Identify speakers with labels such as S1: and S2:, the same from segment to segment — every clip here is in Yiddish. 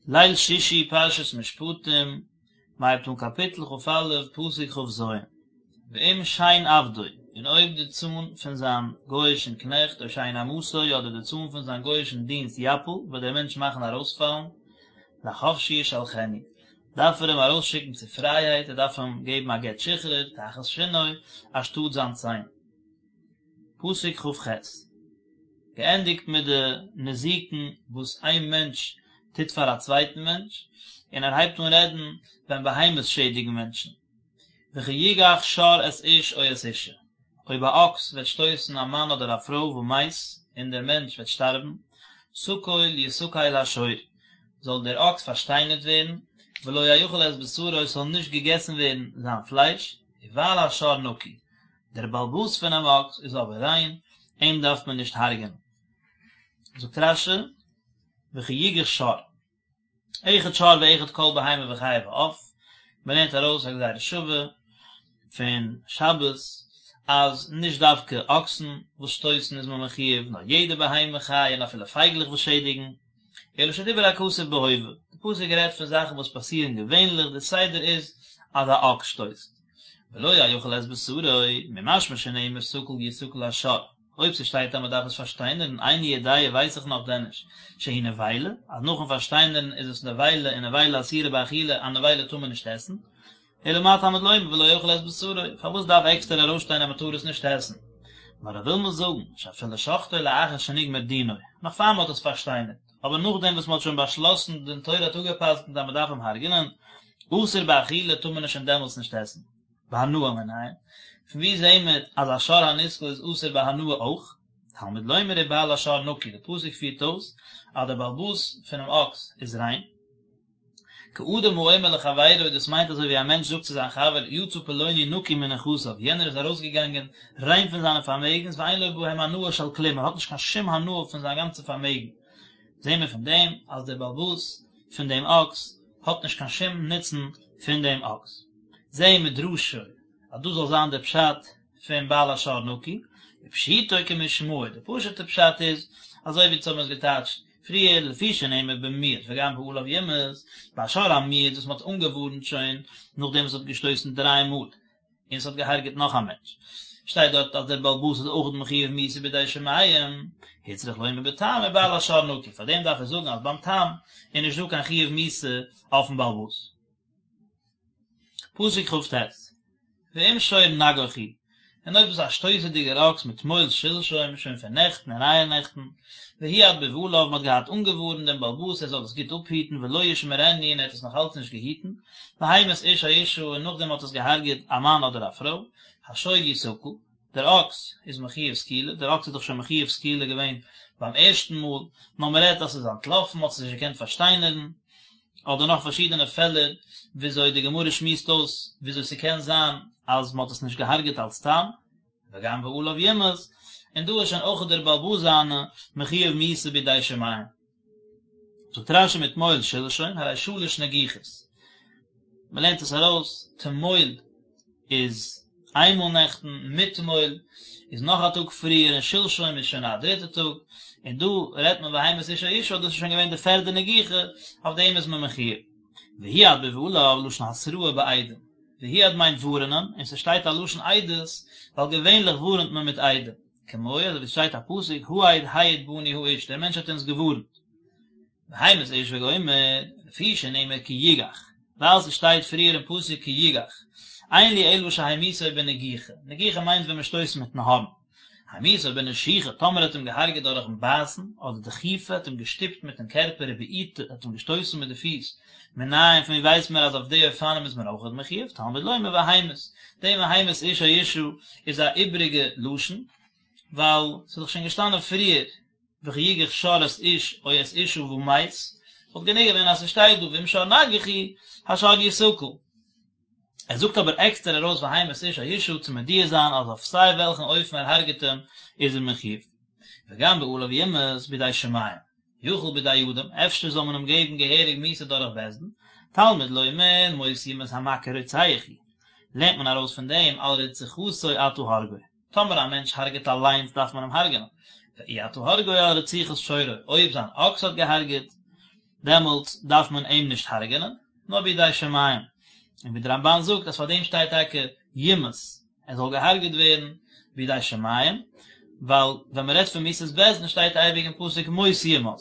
S1: ליל שישי פרשת משפטים, מען הייבט אן קאפיטל כ"א פסוק כ"ז, ואם שן עבדו, און אויב די צאן פון זיין גוי'אישן קנעכט או שן אמתו אדער די צאן פון זיין גוי'אישן דינסט יפיל, וועט דער מענטש מאכן ארויספאלן, לחפשי ישלחנו, דארף ער אים ארויסשיקן צו פרייהייט, ער דארף אים געבן א גט שחרור, תחת שינו, אנשטאט זיין ציין. פסוק כ"ח. געענדיגט מיט די נזיקין וואס איין מענטש טוט פאר א צווייטן מענטש, און ער הייבט אן רעדן ווען בהמות שעדיגן מענטשן. וכי יגח שור את איש או את אשה, אויב א אקס וועט שטויסן א מאן אדער א פרוי ומת, און דער מענטש וועט שטארבן, סקול יסקל השור, זאל דער אקס פארשטיינערט ווערן, ולא יאכל את בשרו, עס זאל נישט געגעסן ווערן זיין פלייש, ובעל השור נקי, דער בעל הבית פונעם אקס איז אבער ריין, אים דארף מען נישט הרג'ענען. זאגט רש"י, וכי יגח שור, אחד שור ואחד כל בהמה וחיה ועוף, מען לערנט ארויס א גזירה שווה פון שבת, אז נישט דווקא אקסן וואס שטויסן איז מען מחויב, נאר יעדע בהמה חיה און אפילו פייגלעך וואס שעדיגן, אלא שדיבר הכתוב בהווה, די פסוק רעדט פון זאכן וואס פאסירן געווענליך, די סדר איז אז א אקס שטויסט. ולא יאכל את בשרו, ממשמע שנאמר סקול יסקל השור, אויב ס'שטייט אז מ'דארף עס פארשטיינערן, איני יודע ווייס איך נאך דען נישט, שהיא נבילה, אז נאכן פארשטיינערן איז עס נבילה און נבילה אסורה באכילה, א נבילה טאר מען נישט עסן, אלא מה תלמוד לומר ולא יאכל את בשרו, פארוואס דארף עקסטער ארויסשטיין אז מ'טאר עס נישט עסן? נאר ער וויל מיר זאגן, שאפילו שחטו לאחר שנגמר דינו, נאך פאר מ'האט עס פארשטיינערט. אבער נאכדעם וואס מען האט שוין באשלאסן דין תורה האט אפגע'פסק'נט אז מען דארף אים הרג'נען, אסור באכילה טאר מען עס שוין דעמאלטס נישט עסן. בהנאה מנין? פון וואו זעהן מיר אז א שור הנסקל איז אסור בהנאה אויך? תלמוד לומר ובעל השור נקי, די פסוק פירט אויס אז דער בעל הבית פונעם אקס איז ריין. כאדם האומר לחבירו, דאס מיינט אזוי ווי א מענטש זאגט צו זיין חבר, יצא פלוני נקי מנכסיו, יענער איז ארויסגעגאנגען ריין פון זיינע פארמעגנס, ואין לו בהם הנאה של כלום, ער האט נישט קיין שום הנאה פון זיין גאנצע פארמעגן. זעהן מיר פון דעם אז דער בעל הבית פון דעם אקס האט נישט קיין שום נוצן פון דעם אקס. זהו מדרשו, אז דאס זאל זיין דער פשט פון בעל השור נקי, ופשוטו כמשמעו, די פשוט'ע פשט איז, אזוי ווי אונז האבן עס געטייטשט פריער, לפי שנאמר במועד וגם בעליו יומת, ביי שור המועד וואס מען האט אנגעווארנט שוין נאכדעם וואס עס האט געשטויסן דריי מאל, און עס האט געהארגעט נאך א מענטש, שטייט דארט אז דער בעל הבית איז אויך מחויב מיתה בידי שמים, הוצרך לומר בתם ובעל השור נקי, פארדעם דארף ער זאגן אז ביים תם איז נישט דא קיין חיוב מיתה אויפן בעל הבית. פסוק כ"ט, ואם שור נגח הוא, און אויב איז א שטויסעדיגער אקס מתמול שלשום, שוין פון נעכטן און אייערנעכטן, והועד בבעליו, מען האט געהאט אנגעווארנט דעם בעל הבית ער זאל עס גוט אפהיטן ולא ישמרנו און ער האט עס נאך אלץ נישט געהיטן, והמית איש או אשה און נאכדעם האט עס געהארגעט א מאן אדער א פרוי, השור יסקל, דער אקס איז מחויב סקילה, דער אקס איז דאך שוין מחויב סקילה געווען ביים ערשטן מאל, נאר מען רעדט אז ס'איז אנטלאפן, מ'האט עס נישט געקענט פארשטיינערן, אדער נאך פארשידענע פעלער וויאזוי די גמרא שמועסט אויס וויאזוי ס'קען זיין אז מ'האט עס נישט געהארגעט אלס תם, וגם בעליו יומת, און דא איז שוין אויך דער בעל הבית זיינע מחויב מיתה בידי שמים. זאגט רש"י מתמול שלשום, הרי שלש נגיחות. מ'לערנט עס ארויס, תמול איז איינמאל נעכטן, מתמול איז נאך א טאג פריער, און שלשום איז שוין א דריטע טאג, און דא רעדט מען והמית איש או אשה, דאס איז שוין געווען די פערדע נגיחה, אויף דעם איז מען מחויב. והועד בבעליו, לשון התראה בעדים. והועד מיינט ווארענען, און ס'שטייט א לשון עדות, ווייל געווענליך ווארענט מען מיט עדים. כמו אזוי ווי ס'שטייט א פסוק, העד העיד בנו האיש, דער מענטש האט אונז געווארנט. והמית איש וגומר, לפי שנאמר כי יגח, ווייל ס'שטייט פריער אין פסוק כי יגח, אין לי אלא שהמיתו בנגיחה, נגיחה מיינט ווען מ'שטויסט מיטן הארן, המיתו בנשיכה, טאמער האט אים געהארגעט דורכן בייסן, אדער דחיפה, האט אים געשטופט מיטן קערפער ובעיטה, האט אים געשטויסן מיט די פיס, מנין פון ווי ווייסט מען אז אויף די אופנים איז מען אויכעט מחויב, תלמוד לומר והמית, דעם והמית איש או אשה איז א איבריגע לשון, ווייל ס'איז דאך שוין געשטאנען פריער וכי יגח שור את איש או את אשה ומת, וואלט גענוג געווען אז ס'שטייט דא ואם שור נגח הוא, השור יסקל. ער זאגט אבער עקסטער ארויס והמית איש או אשה צו מודיע זיין אז אויף סיי וועלכן אופן ער הרג'ט אים איז ער מחויב. וגם בעליו יומת בידי שמים. יכול בידי אדם, אפשר זאל מען אים געבן געהעריג מיתה דורך בית דין, תלמוד לומר מות יומת המכה רוצח הוא. לערנט מען ארויס פון דעם על רציחתו אתה הורגו. טאמער א מענטש הרג'ט אליינס דארף מען אים הרג'נען, ואי אתה הורגו על רציחת שורו, אויב זיין אקס האט געהרג'עט. דעמאלטס דארף מען אים נישט הרג'נען, נאר בידי שמים, און ווי דער רמבן זאגט אז פאר דעם שטייט טאקע יומת, ער זאל געהארגעט ווערן בידי שמים, ווייל ווען מען רעדט פון מיתת בית דין שטייט אייביג אין פסוק מות יומת,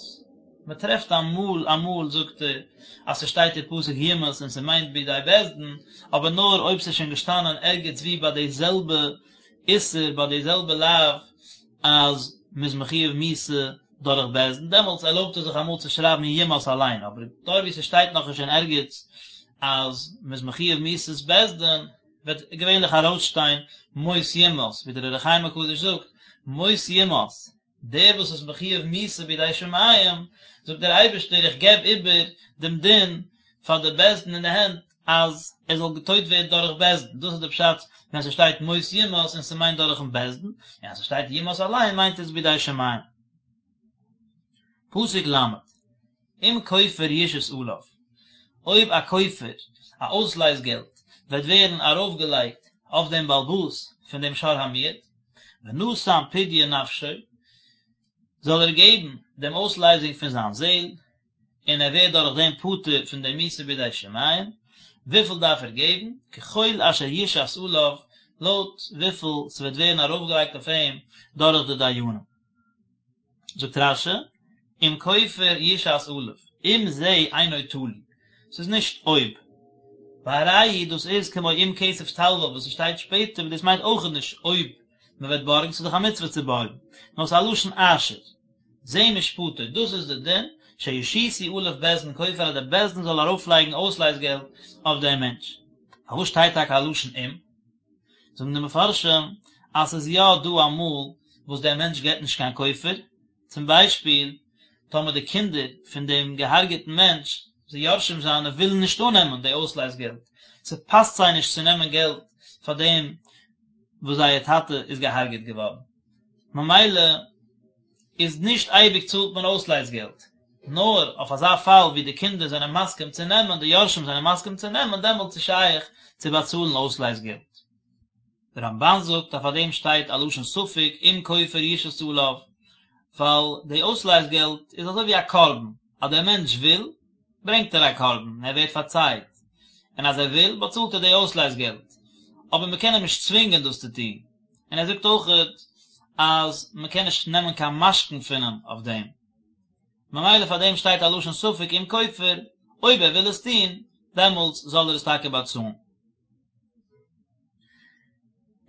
S1: מען טרעפט אמאל אמאל זאגט ער אז ס'שטייט אין פסוק יומת און ס'מיינט בידי בית דין, אבער נאר אויב ס'איז שוין געשטאנען ערגעץ ווי ביי די זעלבע איסור ביי די זעלבע לאו אז מ'איז מחויב מיתה דורך בית דין, דעמאלטס ערלויבט ער זיך אמאל צו שרייבן יומת אליין, אבער דארט ווי ס'שטייט נאכנישט אין ערגעץ אז מ'איז מחויב מיתת בית דין, וועט געווענליך ארויסשטיין מות יומת, ווי דער אור החיים הקדוש זאגט, מות יומת, דער וואס איז מחויב מיתה בידי שמים, זאגט דער אייבערשטער איך געב איבער דעם דין פאר די בית דין אין די הענט אז ער זאל געטויט ווערן דורך בית דין, דאס איז די פשט ווען ס'שטייט מות יומת און ס'מיינט דורכן בית דין, און אז ס'שטייט יומת אליין מיינט עס בידי שמים. פסוק ל', אם כופר יושת עליו, אויב א כופר, א אויסלייז געלט, וועט ווערן ארויפגעלייגט אויף דעם בעל הבית פון דעם שור המועד, ונתן פדיון נפשו, זאל ער געבן דעם אויסלייזונג פון זיין זעל, און ער ווערט דורך דעם פטור פון דעם מיתה בידי שמים, וויפיל דארף ער געבן? ככל אשר יושת עליו, לויט וויפיל ס'וועט ווערן ארויפגעלייגט אויף אים דורך די דיינים. זאגט רש"י, אם כופר יושת עליו, אם זה אינו תלוי, ס'איז נישט אויב. והרי הוא דאס איז כמו אם כסף תלוה וואס ס'שטייט שפעטער וואס דאס מיינט אויכעט נישט אויב מ'וועט בארגן, ס'איז דאך א מצוה צו בארגן, נאר ס'איז א לשון אשר. זה משפטו, דאס איז די דין, שישיתו עליו בית דין כופר אז די בית דין זאל ארויפלייגן אויסלייז געלט אויף דעם מענטש. פארוואס שטייט טאקע א לשון אם? זאגן די מפרשים אז ס'איז יא דא אמאל וואס דער מענטש געבט נישט קיין כופר, צום ביישפיל טאמער די קינדער פון דעם געהארגעטן מענטש, די יורשים זיינע, ווילן נישט אננעמען די אויסלייז געלט, ס'פאסט זיי נישט צו נעמען געלט פאר דעם וואס זייער טאטע איז געהארגעט געווארן, ממילא איז נישט אייביג צאלט מען אויסלייז געלט, נאר אויף אזא פאל ווי די קינדער זענען מסכים צו נעמען, די יורשים זענען מסכים צו נעמען, דעמאלטס איז שייך צו באצאלן אויסלייז געלט. דער רמב"ן זאגט אז פאר דעם שטייט א לשון ספק אם כופר יושת עליו, ווייל די אויסלייז געלט איז אזוי ווי א קרבן, אז דער מענטש וויל, ברענגט ער א קרבן און ער ווערט פארצייט, און אז ער וויל, באצאלט ער די אויסלייז געלט, אבער מען קען אים נישט צווינגען דאס צו טון, און ער זאגט אויכעט אז מען קען נישט נעמען קיין משכון פון אים אויף דעם, ממילא פאר דעם שטייט א לשון ספק אם כופר, אויב ער וויל עס טון, דעמאלטס זאל ער עס טאקע באצאלן.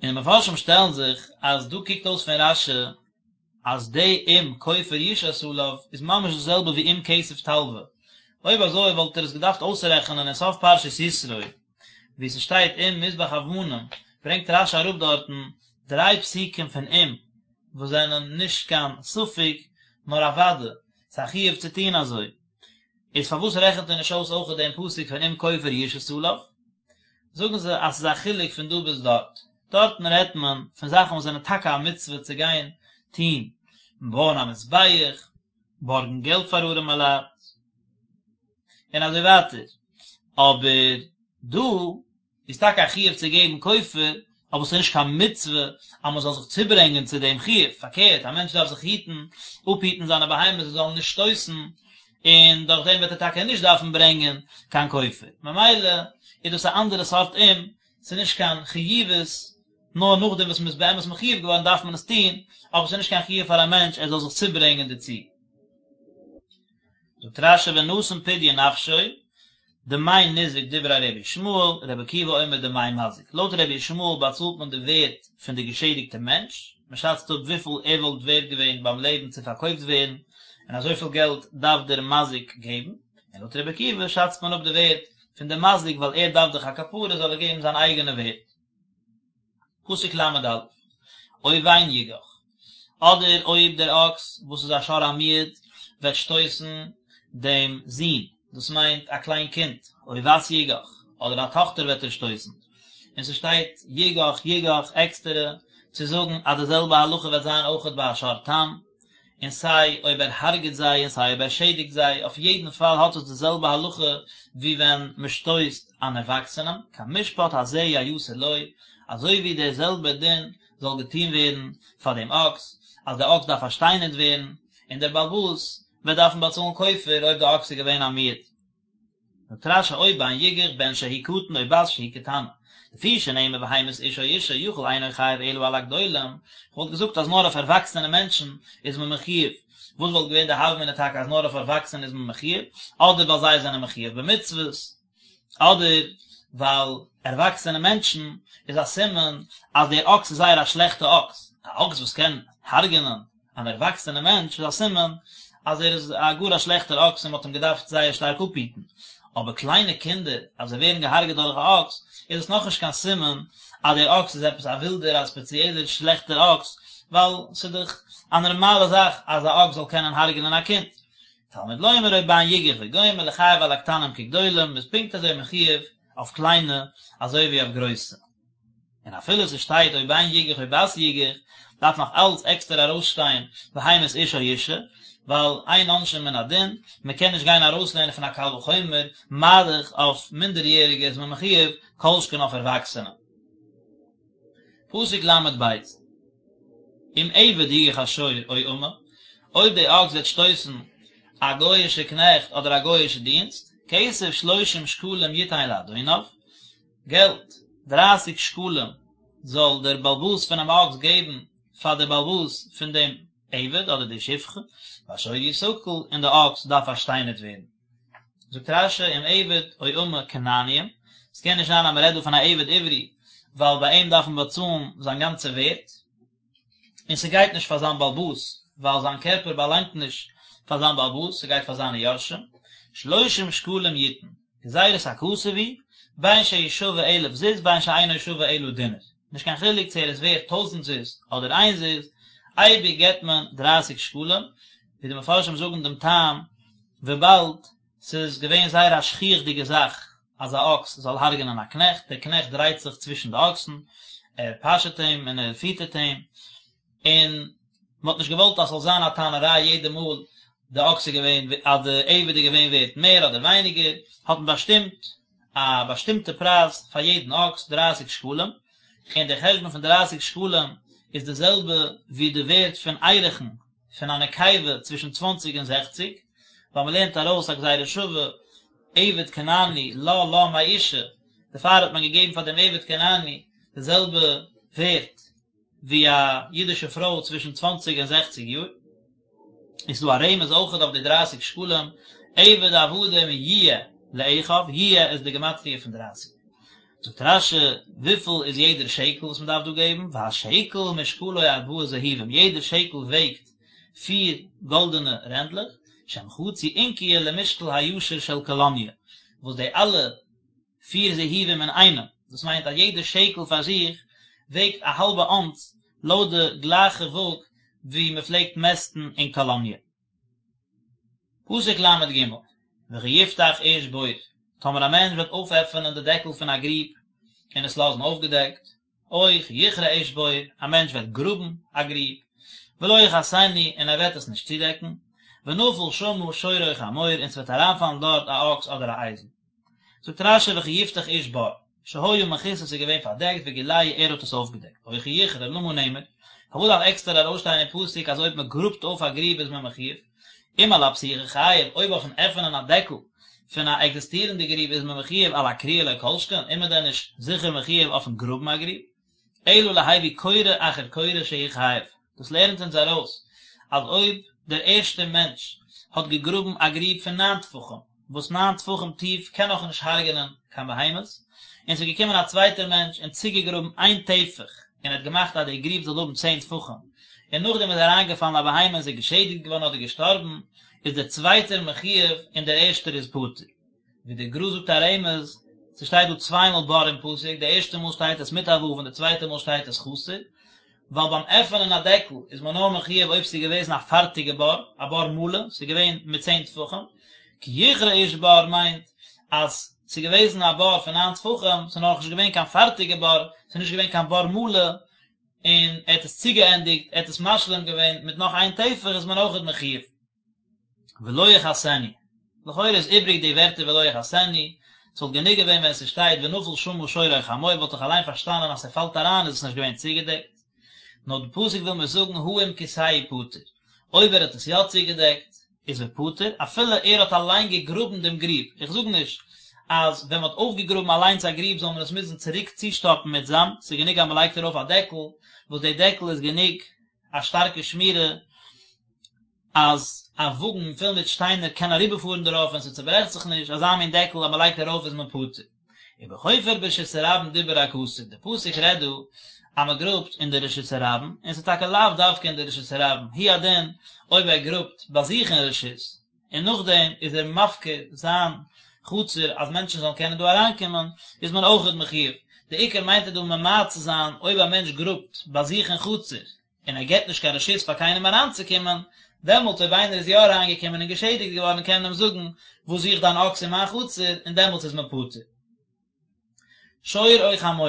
S1: און די מפרשים שטעלן זיך אז דא קוקט אויס פון רש"י אז די אם כופר יושת עליו איז ממש די זעלבע ווי אם כסף תלוה, אויב אזוי וואלט ער עס געדארפט אויסרעכענען אין סוף פרשת יתרו וואו ס'שטייט אם מזבח אבנים, ברענגט רש"י אראפ דארטן דריי פסוקים פון אם וואס זענען נישט קיין ספק נאר א וודאי, ס'איז א חיוב צו טון אזוי, איז פארוואס רעכנט ער נישט אויס אויכעט דעם פסוק פון אם כופר יושת עליו? זאגן זיי אז ס'איז א חילוק פון דא ביז דארט, דארטן רעדט מען פון זאכן וואס זענען טאקע א מצוה צו גיין טון, בויען א מזבח, בארגן געלט פאר ארעמע לייט, און אזוי ווייטער, אבער דא איז טאקע א חיוב צו געבן כופר, אבער ס'איז נישט קיין מצוה אז מ'זאל זיך צוברענגען צו דעם חיוב, פארקערט, א מענטש דארף זיך היטן, אפהיטן זיינע בהמות זיי זאלן נישט שטויסן, און דורך דעם וועט ער טאקע נישט דארפן ברענגען קיין כופר, ממילא איז דאס א אנדערע סארט אם, ס'איז נישט קיין חיובית, נאר נאכדעם וואס מ'איז באמת מחויב געווארן דארף מען עס טון, אבער ס'איז נישט קיין חיוב פאר א מענטש ער זאל זיך צוברענגען דערצו. זאגט רש"י ונתן פדיון נפשו, דמי ניזק דברי רבי ישמעאל, רבי עקיבא אומר דמי מזיק, לויט רבי ישמעאל באצאלט מען די ווערט פון די געשעדיגטע מענטש, מען שאצט אפ וויפיל ער וואלט ווערט געווען ביים לעבן צו פארקויפט ווערן, און אזויפיל געלט דארף דער מזיק געבן, און לויט רבי עקיבא שאצט מען אפ די ווערט פון די מזיק ווייל ער דארף דאך א כפרה זאל ער געבן זיין אייגענע ווערט. פסוק ל"א, או בן יגח, אדער אויב דער אקס וואס איז א שור המועד וועט שטויסן דעם זון, דאס מיינט א קליין קינד, או בת יגח, אדער א טאכטער וועט ער שטויסן, און ס'שטייט יגח יגח עקסטערע צו זאגן אז די זעלבע הלכה וועט זיין אויכעט ביי א שור תם, און סיי אויב ער הרג'ט זיי און סיי אויב ער שעדיגט זיי, אויף יעדן פאל האט עס די זעלבע הלכה ווי ווען מען שטויסט אן ערוואקסענעם, כמשפט הזה יעשה לו, אזוי ווי דער זעלבער דין זאל געטון ווערן פאר דעם אקס, אז דער אקס דארף פארשטיינערט ווערן, און דער בעל הבית. וועט דארפן באצאלן כופר אויב די אקס איז געווען א מועד. זאגט רש"י או בן יגח בן שהוא קטן או בת שהיא קטנה, לפי שנאמר והמית איש או אשה יכול אינו חייב אלא על הגדולים, כ'וואלט געזאגט אז נאר אויף ערוואקסענע מענטשן איז מען מחויב, וואס וואלט געווען די הוה אמינא טאקע אז נאר אויף ערוואקסענע איז מען מחויב, אדער ווייל זיי זענען מחויב במצוות, אדער ווייל ערוואקסענע מענטשן איז א סימן אז דער אקס איז זייער א שלעכטע אקס, א אקס וואס קען הרג'נען אן ערוואקסענע מענטש איז א סימן אז ער איז א גאר א שלעכטער אקס און מען האט אים געדארפט זייער שטארק אפהיטן, אבער קליינע קינדער אז זיי ווערן געהארגעט דורך א אקס איז עס נאכנישט קיין סימן אז דער אקס איז עפעס א ווילדער א ספעציעלער שלעכטער אקס, ווייל ס'איז דאך א נארמאלע זאך אז א אקס זאל קענען הרג'נען א קינד. תלמוד לומר או בן יגח וגומר לחייב על הקטנים כגדולים, מ'איז פונקט אזוי מחויב אויף קליינע אזוי ווי אויף גרויסע. און אפילו ס'שטייט או בן יגח או בת יגח, דארף נאך אלץ עקסטער ארויסשטיין והמית איש או אשה, ווייל אין עונשין מן הדין, מ'קען נישט גיין ארויסלערנען פון א קל וחומר, מה דאך אויף מינדעריעריגע איז מען מחויב, כל שכן אויף ערוואקסענע. פסוק ל"ב, אם עבד יגח השור או אמה, אויב די אקס וועט שטויסן א גוי'אישע קנעכט אדער א גוי'אישע דינסט, כסף שלושים שקלים יתן לאדוניו, געלט, דרייסיג שקלים זאל דער באלבאס פונעם אקס געבן פאר דער באלבאס פון דעם עבד אדער די שפחה, והשור יסקל, און די אקס דארף פארשטיינערט ווערן. זאגט רש"י אם עבד או אמה כנעניים, ס'קען נישט זיין אז מ'רעדט דא פון א עבד עברי, ווייל ביי אים דארף מען באצאלן זיין גאנצע ווערט, און ס'גייט נישט פאר זיין באלבאס, ווייל זיין קערפער באלאנגט נישט פאר זיין באלבאס, ס'גייט פאר זיינע יורשים, שלושים שקלים יתן, גזירת הכתוב היא, בין שהוא שווה אלף זוז בין שאינו שווה אלא דינר, נישט קיין חילוק צו ער איז ווערט טויזנט זוז אדער איין זוז, אייביג געבט מען דרייסיג שקלים, ווי די מפרשים זאגן דעם טעם, וויבאלד ס'איז געווען זייער א שכיח'דיגע זאך אז א אקס זאל הרג'נען א קנעכט, דער קנעכט דרייט זיך צווישן די אקסן, ער פאשעט אים און ער פיטערט אים, און מען האט נישט געוואלט אז ס'זאל זיין א טענה'ריי יעדע מאל די אקס איז געווען, אז די עבד איז געווען ווערט מער אדער ווייניגער, האט מען באשטימט א באשטימטע פרייז פאר יעדן אקס, דרייסיג שקלים, און דער חשבון פון דרייסיג שקלים איז די זעלבע ווי די ווערט פון ערכין פון א נקבה צווישן צוואנציג און זעכציג, ווייל מען לערנט ארויס א גזירה שווה, עבד כנעני לה לה מאשה, דערפאר האט מען געגעבן פאר דעם עבד כנעני די זעלבע ווערט ווי א אידישע פרוי צווישן צוואנציג און זעכציג יאר. איז דא א רמז אויכעט אויף די דרייסיג שקלים, עבד עבדים יהיה לאחיו, יהיה איז די גמטריא פון דרייסיג. זאגט רש"י, וויפיל איז יעדער שקל וואס מען דארף דא געבן, והשקל משקלו ארבעה זהובים, יעדער שקל וועגט פיר גאלדענע רענדלעך, שהם חצי אונקיא למשקל הישר של קאלאניע, וואס די אלע פיר זהובים אינאיינעם, דאס מיינט אז יעדער שקל פאר זיך וועגט א האלבע אונס לויט די גלייכע וואג ווי מען פלעגט מעסטן אין קאלאניע. פסוק ל"ג, וכי יפתח איש בור, טאמער א מענטש וועט אויפעפענען די דעקל פון א גריב און עס לאזן אויפגעדעקט, או כי יכרה איש בור, א מענטש וועט גראבן א גריב, ולא יכסנו, און ער וועט עס נישט צודעקן, ונפל שמה שור או חמור, און ס'וועט אריינפאלן דארט א אקס אדער א אייזל. זאגט רש"י וכי יפתח איש בור, שהיה מכוסה ס'איז געווען פארדעקט וגילהו ער האט עס אויפגעדעקט, או כי יכרה למה נאמר, פארוואס דארף עקסטער ארויסשטיין אין פסוק אז אויב מען גראבט אויף א גריב איז מען מחויב, אם על הפתיחה חייב, אויב אויפן עפענען א דעקל פון א עקזיסטירענדע גריב איז מען מחויב על הכריה לא כל שכן, איז מען דען נישט זיכער מחויב אויפן גראבן א גריב? אלא להביא כורה אחר כורה שהוא חייב, דאס לערנט אונז ארויס אז אויב דער ערשטער מענטש האט געגראבן א גריב פון ניין טפחים, וואס ניין טפחים טיף קען נאך נישט הרג'נען קיין בהמות, און ס'איז געקומען א צווייטער מענטש און צוגעגראבן איין טפח און האט געמאכט אז די גריב זאל האבן צען טפחים, און נאכדעם איז אריינגעפאלן א בהמה און ס'איז געשעדיגט געווארן אדער געשטארבן, איז דער צווייטער מחויב און דער ערשטער איז פטור. ווי דער גר"א זאגט א רמז, ס'שטייט דא צוויי מאל בור אין פסוק, די ערשטע מאל שטייט עס מיט א ו' און די צווייטע מאל שטייט עס חסר, ווייל ביים עפענען א דעקל איז מען נאר מחויב אויב ס'איז געוועזן א פארטיגע בור, א בור מלא, ס'איז געווען מיט צען טפחים, כי יכרה איש בור מיינט אז ס'איז געוועזן א בור פון ניין טפחים, ס'איז נאכנישט געווען קיין פארטיגע בור, ס'איז נישט געווען קיין בור מלא, און ער האט עס צוגעענדיגט, ער האט עס משלים געווען מיט נאך איין טפח איז מען אויכעט מחויב. ולא יכסנו, לכאורה איז איבריג די ווערטער ולא יכסנו, ס'וואלט גענוג געווען ווען ס'שטייט ונפל שמה שור או חמור וואלט איך אליין פארשטאנען אז ס'פאלט אריין איז עס נישט געווען צוגעדעקט, נאר די פסוק וויל מיר זאגן הא אם כסהו פטור, אויב ער האט עס יא צוגעדעקט. איז ופטור, אפילו ער האט אליין געגראבן דעם גריב, איך זאג נישט אז ווען מען האט אויפגעגראבן אליינס א גריב זאל מען עס מוזן צוריק צושטאפן מיט זאמד, ס'איז גענוג אז מען לייגט ארויף א דעקל, וואס די דעקל איז גענוג א שטארקע שמירה אז א וואגן פול מיט שטיינער קען אריבערפארן דערויף און ס'צוברעכט זיך נישט, אזא מין דעקל אז מען לייגט ארויף איז מען פטור. ובחופר ברשות הרבים דיבר הכתוב, די פסוק רעדט דא אז מען גראבט אין די רשות הרבים, און ס'איז טאקע לאו דווקא אין די רשות הרבים, הוא הדין אויב ער גראבט ביי זיך אין רשות, און נאכדעם איז ער מפקיר זיין חצר אז מענטשן זאלן קענען דא אריינקומען, איז מען אויכעט מחויב. די עיקר מיינט ער דא ממעט צו זיין אויב א מענטש גראבט ביי זיך אין חצר, און ער געבט נישט קיין רשות פאר קיינעם אריינצוקומען, דעמאלטס אויב איינער איז יא אריינגעקומען און געשעדיגט געווארן קען מען אים זאגן, וואס זוכט דיין אקס אין מיין חצר, און דעמאלטס איז מען פטור. שור או חמור,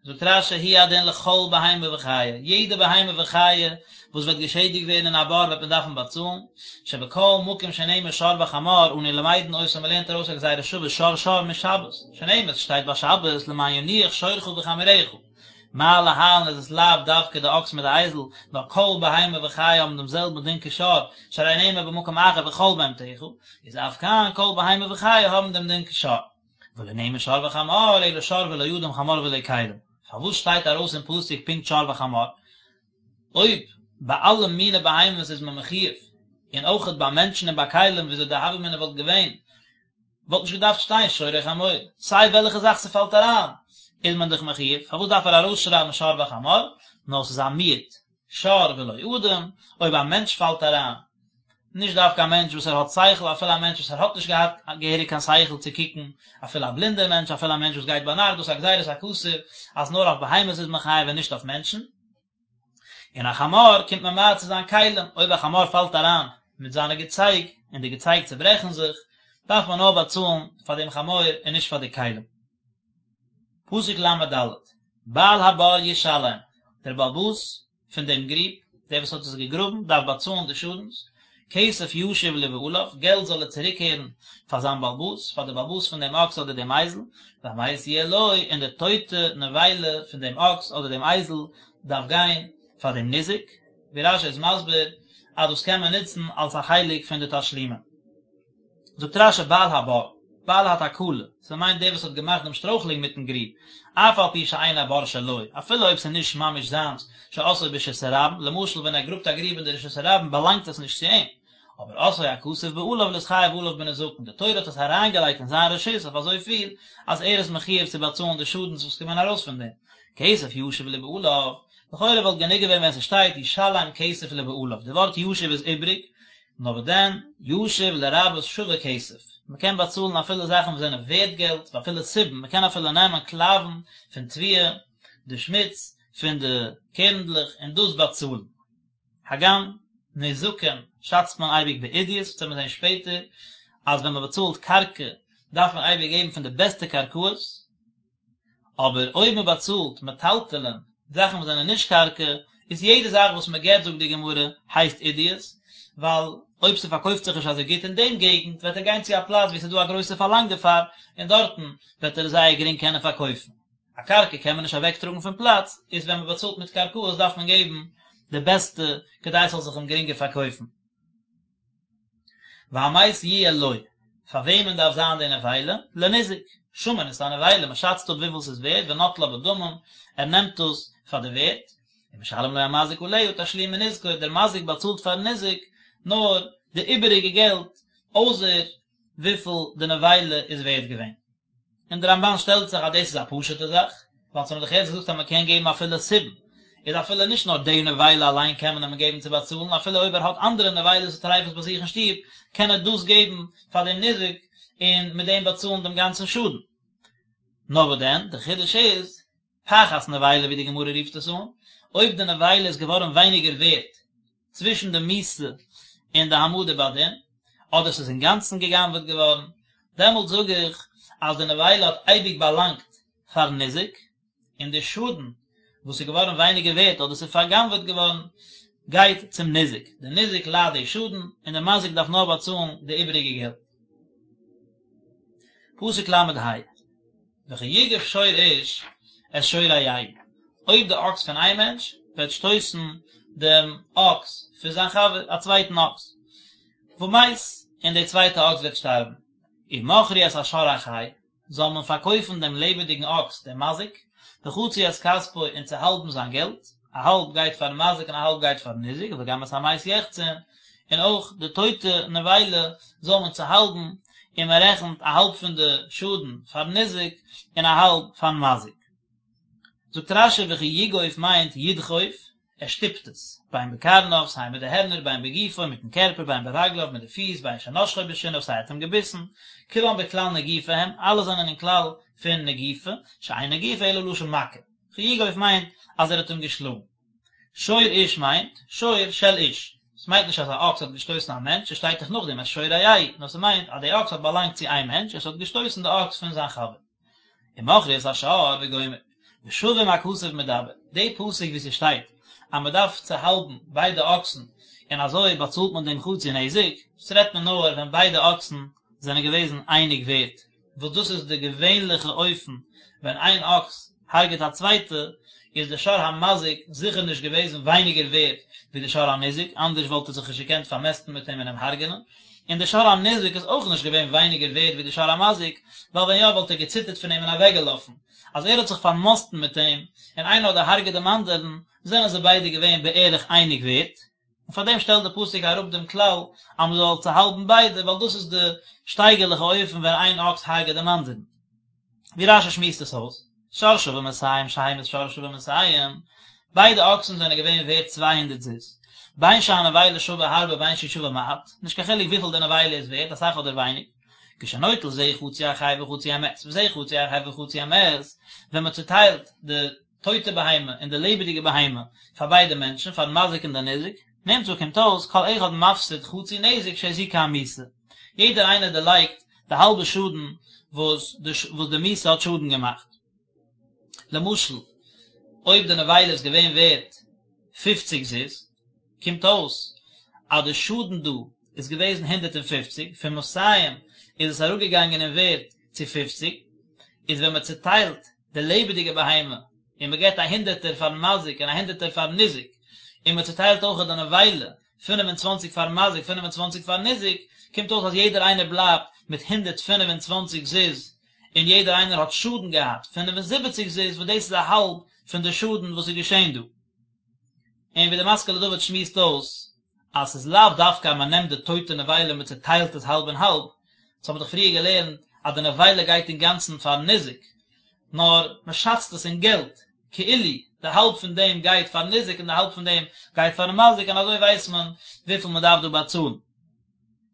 S1: זאגט רש"י הוא הדין לכל בהמה וחיה, יעדע בהמה וחיה וואס וועט געשעדיגט ווערן אין א בור וועט מען דארפן באצאלן, שבכל מקום שנאמר שור וחמור אנו למדין אותו מ'לערנט ארויס א גזירה שווה שור שור משבת, שנאמר ס'שטייט ביי שבת למען ינוח שורך וחמורך. מה להלן איז עס לאו דווקא די אקס מיט די אייזל, נאר כל בהמה וחיה האבן דעם זעלבן דין כשור, שהרי נאמר במקום אחר וכל בהמתך, איז אף כאן כל בהמה וחיה האבן דעם דין כשור. ולא נאמר שור וחמור, אלא שור ולא אדם חמור ולא כלים. פארוואס שטייט ארויס אין פסוק פונקט שור וחמור? אויב ביי אלע מיני בהמות איז מען מחויב, און אויכעט ביי מענטשן און ביי כלים וויאזוי די הוה אמינא וואלט געווען, וואלט נישט געדארפט שטיין שור או חמור, סיי וועלכע זאך ס'פאלט אריין איז מען דאך מחויב, פארוואס דארף ער ארויסשרייבן שור וחמור, נאר ס'איז א מיעוט, שור ולא אדם, אויב א מענטש פאלט אריין, נישט דווקא א מענטש וואס ער האט שכל, אפילו א מענטש וואס ער האט נישט געהאט געהעריג קיין שכל צו קוקן, אפילו א בלינדער מענטש, אפילו א מענטש וואס גייט ביינאכט, דאס איז א גזירת הכתוב אז נאר אויף בהמות איז מען חייב און נישט אויף מענטשן. און א חמור קומט ממעט צו זיין כלים, אויב א חמור פאלט אריין מיט זיינע געצייג און די געצייג צעברעכן זיך, דארף מען נאר באצאלן פאר דעם חמור און נישט פאר די כלים. פסוק ל"ד, בעל הבור ישלם, דער בעל הבית פון דעם גריב, דער וואס האט עס געגראבן, דארף באצאלן די שאדנס, כסף ישיב לבעליו, געלט זאל ער צוריקקערן פאר זיין בעל הבית, פאר דער בעל הבית פון דעם אקס אדער דעם אייזל, והמת יהיה לו, און די טויטע נבילה פון דעם אקס אדער דעם אייזל דארף גיין פאר דעם ניזק, ווי רש"י איז מסביר אז דאס קען מען נוצן אלס א חלק פון די תשלומים. זאגט רש"י בעל הבור, בעל התקלה, ס'מיינט דער וואס האט געמאכט דעם שטרויכלונג מיטן גריב, אף על פי שאין הבור שלו, אפילו אויב ס'איז נישט ממש זיינס, שעשאו ברשות הרבים, למשל ווען ער גראבט א גריב אין די רשות הרבים באלאנגט עס נישט צו אים, אבער עשאו הכתוב בעליו להתחייב עליו בנזקין, די תורה האט עס אריינגעלייגט אין זיין רשות אויף אזויפיל אז ער איז מחויב צו באצאלן די שאדנס וואס קומען ארויס פון דעם, כסף ישיב לבעליו, לכאורה וואלט גענוג געווען ווען ס'שטייט ישלם כסף לבעליו, די ווארט ישיב איז איבריג, נאר וואס דען, ישיב לרבות שווה כסף, מ'קען באצאלן אפילו זאכן וואס זענען ווערט געלט, ואפילו סובין, מ'קען אפילו נעמען קלאוון פון תבואה, די שמוץ פון די קערנדלעך און דאס באצאלן. הגם נזקים שאצט מען אייביג בעידית, וועט מען זען שפעטער אז ווען מען באצאלט קרקע דארף מען אייביג געבן פון די בעסטע קרקעות, אבער אויב מען באצאלט מטלטלין, זאכן וואס זענען נישט קרקע, איז יעדע זאך וואס מען געבט זאגט די גמרא הייסט עידית, ווייל אויב ס'פארקויפט זיך נישט אזוי גוט אין דעם געגנט וועט ער גיין צו א פלאץ וואו ס'איז דא א גרויסע פארלאנג דערפאר און דארטן וועט ער עס זייער גרינג קענען פארקויפן. א קרקע קען מען נישט אוועק טראגן פון פלאץ, איז ווען מען באצאלט מיט קרקעות דארף מען געבן די בעסטע כדי עס זאל זיך אים גרינגער פארקויפן. והמת יהיה לו, פאר וועמען דארף זיין די נבילה? לניזק, שמין את הנבילה, מען שאצט אפ וויפיל ס'איז ווערט, ונוטלה בדמים, ער נעמט דאס פאר די ווערט, ומשלם לו המזיק עליה תשלומי נזקו, דער מזיק באצאלט פארן ניזק נאר די איבעריגע געלט, אויסער וויפיל די נבילה איז ווערט געווען. און דער רמב"ן שטעלט זיך אז דאס איז א פשוט'ע זאך, ווייל אונז האבן דאך יעצט געזאגט אז מען קען געבן אפילו סובין, איז אפילו נישט נאר די נבילה אליין קען מען אים געבן צו באצאלן, אפילו אויב ער האט אנדערע נבילות וטריפות ביי זיך אין שטוב, קען ער דאס געבן פאר דעם ניזק און מיט דעם באצאלן דעם גאנצן שאדן. נאר וואס דען, דער חידוש איז, פחת נבילה ווי די גמרא רופט עס אן, אויב די נבילה איז געווארן ווייניגער ווערט צווישן די מיתה און די העמדה בדין, אדער ס'איז אינגאנצן גע'גנב'עט געווארן, דעמאלט זאג איך אז די נבילה האט אייביג באלאנגט פארן ניזק, און די שאדן וואס איז געווארן ווייניגער ווערט אדער ס'איז פארגנב'עט געווארן, גייט צום ניזק, די ניזק ליידט די שאדן, און די מזיק דארף נאר באצאלן די איבעריגע געלט. פסוק ל"ה. וכי יגף שור איש את שור רעהו, אויב די אקס פון איין מענטש וועט שטויסן דעם אקס פון זיין חבר, א צווייטן אקס. ומת, און די צווייטע אקס וועט שטארבן. ומכרו את השור החי, זאל מען פארקויפן דעם לעבעדיגן אקס דעם מזיק, וחצו את כספו און צוהאלבן זיין געלט, א האלב גייט פארן מזיק און א האלב גייט פארן ניזק, וגם את המת יחצון, און אויך די טויטע נבילה זאל מען צוהאלבן, און מען רעכנט א האלב פון די שאדן פארן ניזק און א האלב פארן מזיק. זאגט רש"י וכי יגוף מיינט ידחוף, ער שטופט עס, בין בקרניו, סיי מיט די הערנער, בין בגופו, מיטן קערפער, בין ברגליו, מיט די פיס, בין שנשכו בשיניו, סיי ער האט אים געביסן, כולם בכלל נגיפה הם, אלע זענען אין כלל פון נגיפה, שאין נגיפה אלא לשון מכה. וכי יגוף מיינט אז ער האט אים געשלאגן. שור איש מיינט, שור של איש. ס'מיינט נישט אז א אקס האט געשטויסן א מענטש, עס שטייט דאך נאכדעם את שור רעהו, נאר ס'מיינט אז די אקס האט באלאנגט צו איין מענטש און ס'האט געשטויסן די אקס פון זיין חבר. ומכרו את השור וגומר. בשווים הכתוב מדבר, די פסוק ווי ס'שטייט אז מ'דארף צוהאלבן ביידע אקסן און אזוי באצאלט מען דעם חצי נזק, דאס רעדט מען נאר ווען ביידע אקסן זענען געוועזן אייניג ווערט, וואס דאס איז די געווענליכע אופן ווען איין אקס הרג'עט א צווייטע, איז די שור המזיק זיכער נישט געוועזן ווייניגער ווערט ווי די שור הניזק, אנדערש וואלט ער זיך נישט געקענט פארמעסטן מיט אים און אים הרג'ענען, און די שור הניזק איז אויך נישט געווען ווייניגער ווערט ווי די שור המזיק, ווייל ווען יא וואלט ער געציטערט פון אים און אוועקגעלאפן, אז ער האט זיך פארמאסטן מיט אים, און איינער האט דערהרג'עט דעם אנדערן, זענען זיי ביידע געווען בערך אייניג ווערט. און פאר דעם שטעלט די פסוק אראפ דעם כלל אז מען זאל צוהאלבן ביידע, ווייל דאס איז די שטייגערליכע אופן ווען איין אקס הרג'עט דעם אנדערן. ווי רש"י שמועסט עס אויס, שור שווה מאתים שהמית שור שווה מאתים, ביידע אקסן זענען געווען ווערט 200 זוז, בין שהנבילה שווה הרבה בין שהיא שווה מעט, נישט קיין חילוק וויפיל די נבילה איז ווערט, אסאך אדער ווייניג, כשנוטל זה חצי החי וחצי המת, וזה חצי החי וחצי המת, ווען מען צוטיילט די טויטע בהמה און די לעבעדיגע בהמה פאר ביידע מענטשן, פארן מזיק און די ניזק, נמצא קומט אויס כל אחד מפסיד חצי נזק שהזיקה המיתה, יעדער איינער דערלייגט די האלבע שאדן וואס די וואס די מיתה האט שאדן געמאכט. למשל, אויב די נבילה איז געווען ווערט פופציג זוז, קומט אויס אז די שאדן דא איז געוועזן 150, פון מאתים איז עס אראפגעגאנגען אין ווערט צו פופציג, איז ווען מען צוטיילט די לעבעדיגע בהמה און מען געבט א הונדערטער פארן מזיק און א הונדערטער פארן ניזק, און מען צוטיילט אויך די נבילה, 25 פארן מזיק 25 פארן ניזק, קומט אויס אז יעדער איינער בלייבט מיט 125 זוז, און יעדער איינער האט שאדן געהאט 75 זוז, וואס דאס איז א האלב פון די שאדן וואס איז געשען דא. און ווי די משכיל לדוד שמועסט אויס, אז ס'איז לאו דווקא אז מ'נעמט די טויטע נבילה און מ'צוטיילט עס האלב און האלב, דאס האבן מיר דאך פריער געלערנט אז די נבילה גייט אינגאנצן פארן ניזק, נאר מ'שאצט עס אין געלט, כאילו די האלב פון דעם גייט פארן ניזק און די האלב פון דעם גייט פארן מזיק און אזוי ווייסט מען וויפיל מ'דארף דא באצאלן.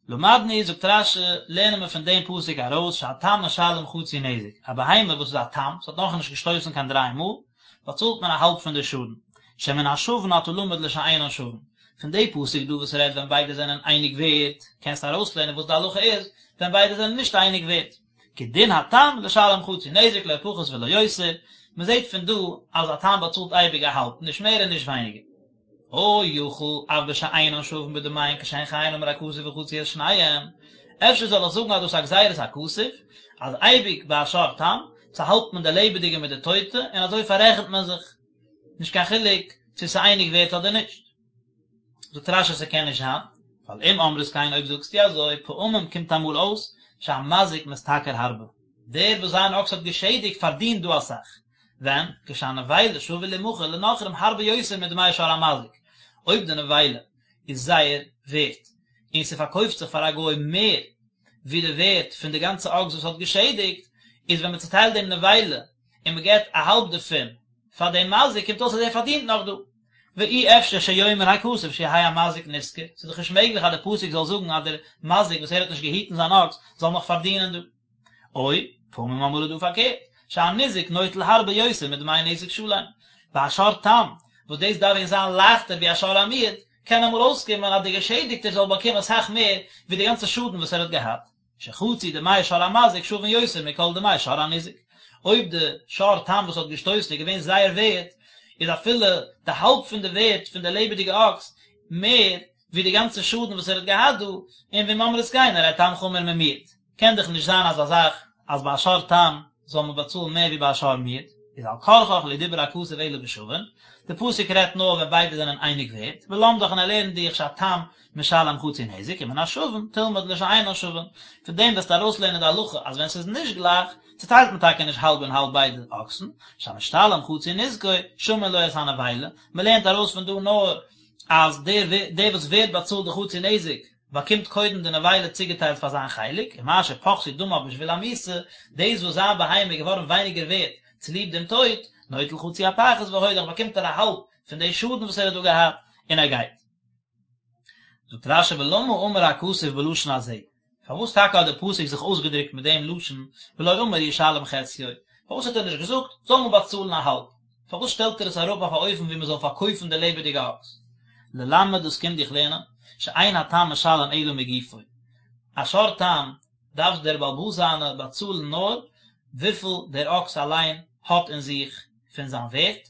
S1: למדנו, זאגט רש"י, לערנען מיר פון דעם פסוק ארויס שהתם משלם חצי נזק, א בהמה וואס איז א תם, ס'האט נאכנישט געשטויסן קיין דריי מאל, באצאלט מען א האלב פון די שאדן, שמן השווין אתה למד לשאינן שווין. פון די פסוק דא וואס רעדט ווען ביידע זענען אייניג ווערט, קענסטו ארויסלערנען וואס די הלכה איז ווען ביידע זענען נישט אייניג ווערט. כי דין התם לשלם חצי נזק לא פחות ולא יותר, מען זעט פון דא אז א תם באצאלט אייביג א האלב, נישט מער און נישט ווייניגער. או יכול אף בשאינן שווין בדמיהן כשהן חיין אמר הכתוב וחצו את שניהם, אפשר זאל איך זאגן אז דאס איז א גזירת הכתוב, אז אייביג ביי א שור תם, צוהאלבט מען די לעבעדיגע מיט די טויטע, און אזוי פאררעכנט מען זיך, נישט קיין חילוק צו ס'איז אייניג ווערט אדער נישט. זאגט רש"י ס'קען נישט זיין, ווייל אם אמרת כן אויב זאגסטו אזוי, פעמים קומט אמאל אויס שהמזיק משתכר הרבה, דער וואס זיין אקס האט געשעדיגט פארדינט דא אסאך, ווען, כשהנבילה שווה לימכר לנכרים הרבה יותר מדמי שור המזיק, אויב די נבילה איז זייער ווערט, און ס'פארקויפט זיך פאר א גוי מער ווי די ווערט פון די גאנצע אקס וואס האט געשעדיגט, איז ווען מ'צוטיילט דעם נבילה און מ'געט א האלב דערפון פאר דעם מזיק קומט אויס אז ער פארדינט נאך דא. ואי אפשר שיאמר הכתוב שיהא המזיק נשכר, ס'איז דאך נישט מעגליך אז די פסוק זאל זאגן אז דער מזיק וואס ער האט נישט געהיטן זיין אקס זאל נאך פארדינען דא. או, פעמים אמאל איז דא פארקערט, שהניזק נוטל הרבה יותר מדמי נזק שלם. ביי א שור תם, וואס דאס דארף ווען זיין לייכטער ווי א שור המועד, קען אמאל אויסקומען אז דער געשעדיגטער זאל באקומען אסאך מער ווי די גאנצע שאדן וואס ער האט געהאט, שחצי דמי שור המזיק שווין יותר מכל דמי שור הניזק. אויב די שור תם וואס האט געשטויסן איז געווען זייער ווערט, איז אפילו די האלב פון די ווערט פון די לעבעדיגע אקס מער ווי די גאנצע שאדן וואס ער האט געהאט דא, און ואם אמרת כן הרי תם חמור ממועד. קען דאך נישט זיין אזא זאך אז ביי א שור תם זאל מען באצאלן מער ווי ביי א שור מועד. איז על כרחך לא דיבר הכתוב אלא בשווין, די פסוק רעדט נאר ווען ביידע זענען אייניג ווערט, ולמדך און ער לערנט דיך שהתם משלם חצי נזק ומן השווין תלמד לשאינן שווין, פון דעם וועסטו ארויסלערנען די הלכה אז ווען ס'איז נישט גלייך, צוטיילט מען טאקע נישט האלב און האלב ביידע אקסן, שהמשתלם חצי נזקו, שמין לו את הנבילה, מ'לערנט ארויס פון דא נאר אז דער דער וואס ווערט באצאלט די חצי נזק באקומט קודם די נבילה צוגעטיילט פאר זיין חלק, ומה שפחתו דמיו בשביל המיתה, דאס וואס זיין בהמה איז געווארן ווייניגער ווערט צוליב דעם טויט, נוטל חצי הפחת והולך באקומט ער א האלב פון די שאדן וואס ער האט דא געהאט, און ער גייט. זאגט רש"י ולמה אמר הכתוב בלשון הזה, פארוואס טאקע האט דער פסוק זיך אויסגעדרוקט מיט דעם לשון ולא אמר ישלם חציו, פארוואס האט ער נישט געזאגט זאל מען באצאלן א האלב, פארוואס שטעלט ער עס אראפ אויף א אופן ווי מען זאל פארקויפן די לעבעדיגע אקס? ללמד דאס קומט דיך לערנען, שאין התם משלם אלא מגופו, א שור תם דארף דער בעל הבית זיינע באצאלן נאר וויפיל דער אקס אליין האט אין זיך פון זיין ווערט,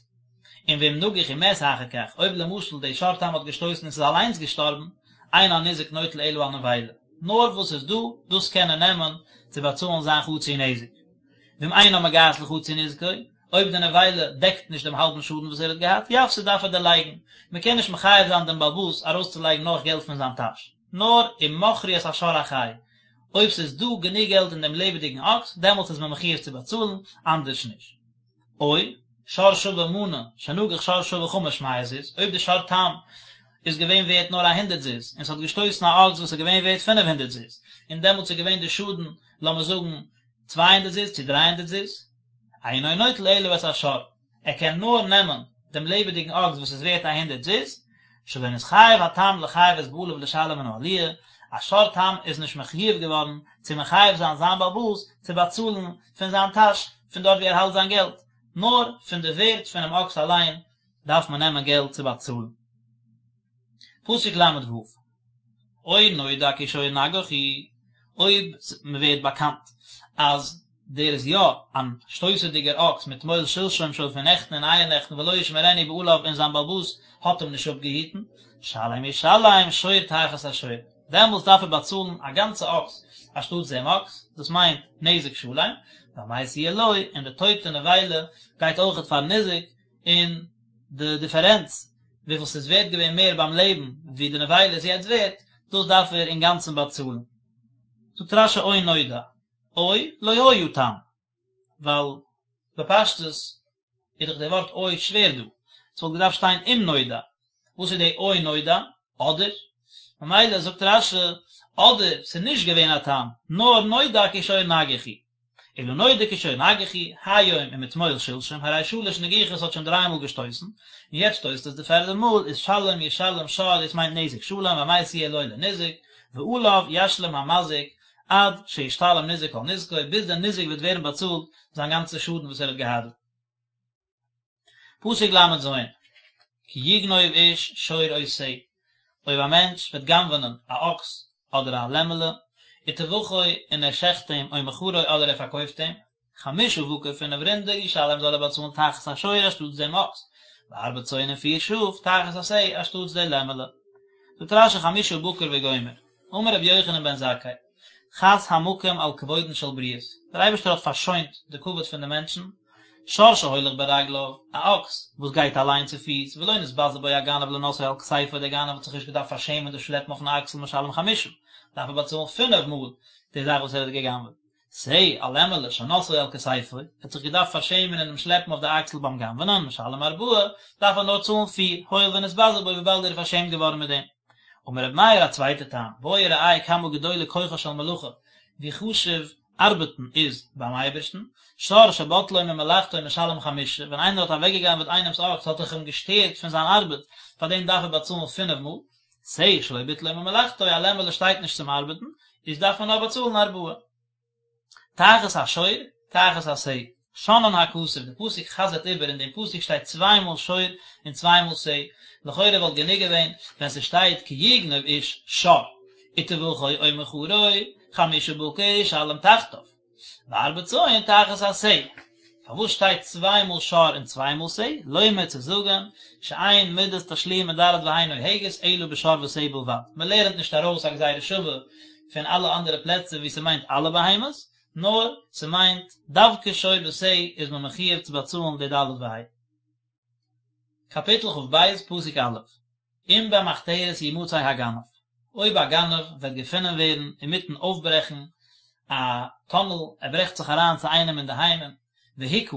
S1: און ואם נגח ומת אחר כך, אויב למשל די שור תם האט געשטויסן און ס'איז אליינס געשטארבן, אין הניזק נוטל אלא הנבילה, נאר וואס איז דא, דאס קען ער נעמען צו באצאלן זיין חצי נזק. ואם אינה מגעת לחצי נזקו, אויב די נבילה דעקט נישט דעם האלבן שאדן וואס ער האט געהאט, יפסיד דארף ער דערלייגן, מען קען נישט מחייב זיין דעם בעל הבית ארויסצולייגן נאך געלט פון זיין טאש, נאר אם מכרו את השור החי, אויב ס'איז דא גענוג געלט אין דעם לעבעדיגן אקס, דעמאלטס איז מען מחויב צו באצאלן, אנדערש נישט. או, שור שווה מנה, שנגח שור שווה חמש מאות זוז, אויב די שור תם איז געווען ווערט נאר א הונדערט זוז, און ס'האט געשטויסן א אקס וואס איז געווען ווערט פינף הונדערט זוז, און דעמאלטס איז געווען די שאדן לאמיר זאגן צוויי הונדערט זוז צו דריי הונדערט זוז, אינו נוטל אלא את השור, ער קען נאר נעמען דעם לעבעדיגן אקס וואס איז ווערט א הונדערט זוז, שלא נתחייב התם לחייב את בעליו לשלם מן העליה, א שור תם איז נישט מחויב געווארן צו מחייב זיין זיין בעל הבית צו באצאלן פון זיין טאש פון דארט ווי ער האלט זיין געלט, נאר פון די ווערט פונעם אקס אליין דארף מען נעמען געלט צו באצאלן. פסוק ל"ו, או נודע כי שור נגח הוא, אויב מען ווערט באקאנט אז דער איז יא אן שטויסעדיגער אקס מתמול שלשום שוין פון נעכטן און אייערנעכטן ולא ישמרנו בעליו און זיין בעל הבית האט אים נישט אפגעהיטן, שלם ישלם שור תחת השור, דעמאלטס דארף ער באצאלן א גאנצע אקס אנשטאטס דעם אקס, דאס מיינט נזק שלם, והמת יהיה לו, און די טויטע נבילה גייט אויכעט פארן ניזק, און די דיפערענץ וויפיל ס'איז ווערט געווען מער ביים לעבן ווי די נבילה איז יעצט ווערט, דאס דארף ער אינגאנצן באצאלן. זאגט רש"י או נודע, או לא היה תם, ווייל בפשטות איז דאך די ווארט או שווער דא, ס'וואלט געדארפט שטיין אם נודע, וואס איז די או נודע? אדער? ממילא זאגט רש"י אדער ס'איז נישט געווען א תם, נאר נודע כי שור נגח הוא. אלא נודע כי שור נגח הוא, היום ומתמול שלשום, הרי שלש נגיחות האט שוין דריי מאל געשטויסן, און יעצט שטויסט עס די פערדע מאל, איז שלם ישלם שור, דאס מיינט נזק שלם, והמת יהיה לו לניזק, ועליו ישלים המזיק, עד שישתלם ניזק כל נזקו, ביז דער ניזק וועט ווערן באצאלט זיין גאנצע שאדן וואס ער האט געהאט. פסוק ל"ז, כי יגנוב איש שור או שה, אויב א מענטש וועט גנב'נען א אקס אדער א לעמעלע, וטבחו און ער שעכט אים, או מכרו אדער ער פארקויפט אים, חמשה בקר פינף רינדער ישלם זאל ער באצאלן תחת השור אנשטאטס דעם אקס, וארבע צאן און פיר שאף תחת השה אנשטאטס די לעמעלע. זאגט רש"י חמשה בקר וגומר, אמר רבי יוחנן בן זכאי, חס המקום על כבודן של בריות, דער אייבערשטער האט פארשוינט די כבוד פון די מענטשן, שור שהולך ברגליו, א אקס וואס גייט אליין צו פיס, ולא נתבזה בו הגנב לנושאו על כתפו, דער גנב האט זיך נישט געדארפט פארשעמען דאס שלעפן אויפן אקסל משלם חמשה, דארף ער באצאלן פינף מאל די זאך וואס ער האט גע'גנב'עט. שה, א לעמעלע, שנשאו על כתפו, ער האט זיך געדארפט פארשעמען אין דעם שלעפן אויף די אקסל ביים גנב'נען, משלם ארבעה, דארף ער נאר צאלן פיר, הואיל ונתבזה בו וויבאלד ער איז פארשעמט געווארן מיט דעם. אמר רבי מאיר א צווייטע טעם, בוא וראה כמה גדולה כוחה של מלאכה, ווי חשוב ארבעטן איז ביים אייבערשטן, שור שבטלו ממלאכתו משלם חמשה, ווען איינער האט אוועקגעגנבעט איינעמס אקס האט ער אים געשטערט פון זיין ארבעט, פאר דעם דארף ער באצאלן פינף מאל, שה שלא ביטלו ממלאכתו, א לעמעלע שטייט נישט צום ארבעטן, איז דארף מען נאר באצאלן ארבעה. תחת השור, תחת השה. שנאן הכתוב, די פסוק חזר'ט איבער, אין דעם פסוק שטייט צוויי מאל שור און צוויי מאל שה, לכאורה וואלט גענוג געווען ווען ס'שטייט כי יגנוב איש שור, וטבחו או מכרו, חמשה בקר ישלם תחתיו, וארבע צאן תחת השה. פארוואס שטייט צוויי מאל שור און צוויי מאל שה? לומר צו זאגן, שאין מידת תשלומין ד' וה' נוהגת אלא בשור ושה בלבד, מ'לערנט נישט ארויס א גזירה שווה פון אלע אנדערע פלעצער וואו ס'מיינט אלע בהמות, נאר ס'מיינט דווקא שור ושה איז מען מחיוב צו באצאלן די ד' וה'. קאפיטל כ"ב פסוק א', אם במחתרת ימצא הגנב, אויב א גנב וועט געפונען ווערן אינמיטן אויפברעכן א טונעל, ער ברעכט זיך אריין צו איינעם אינדערהיים, והוכה,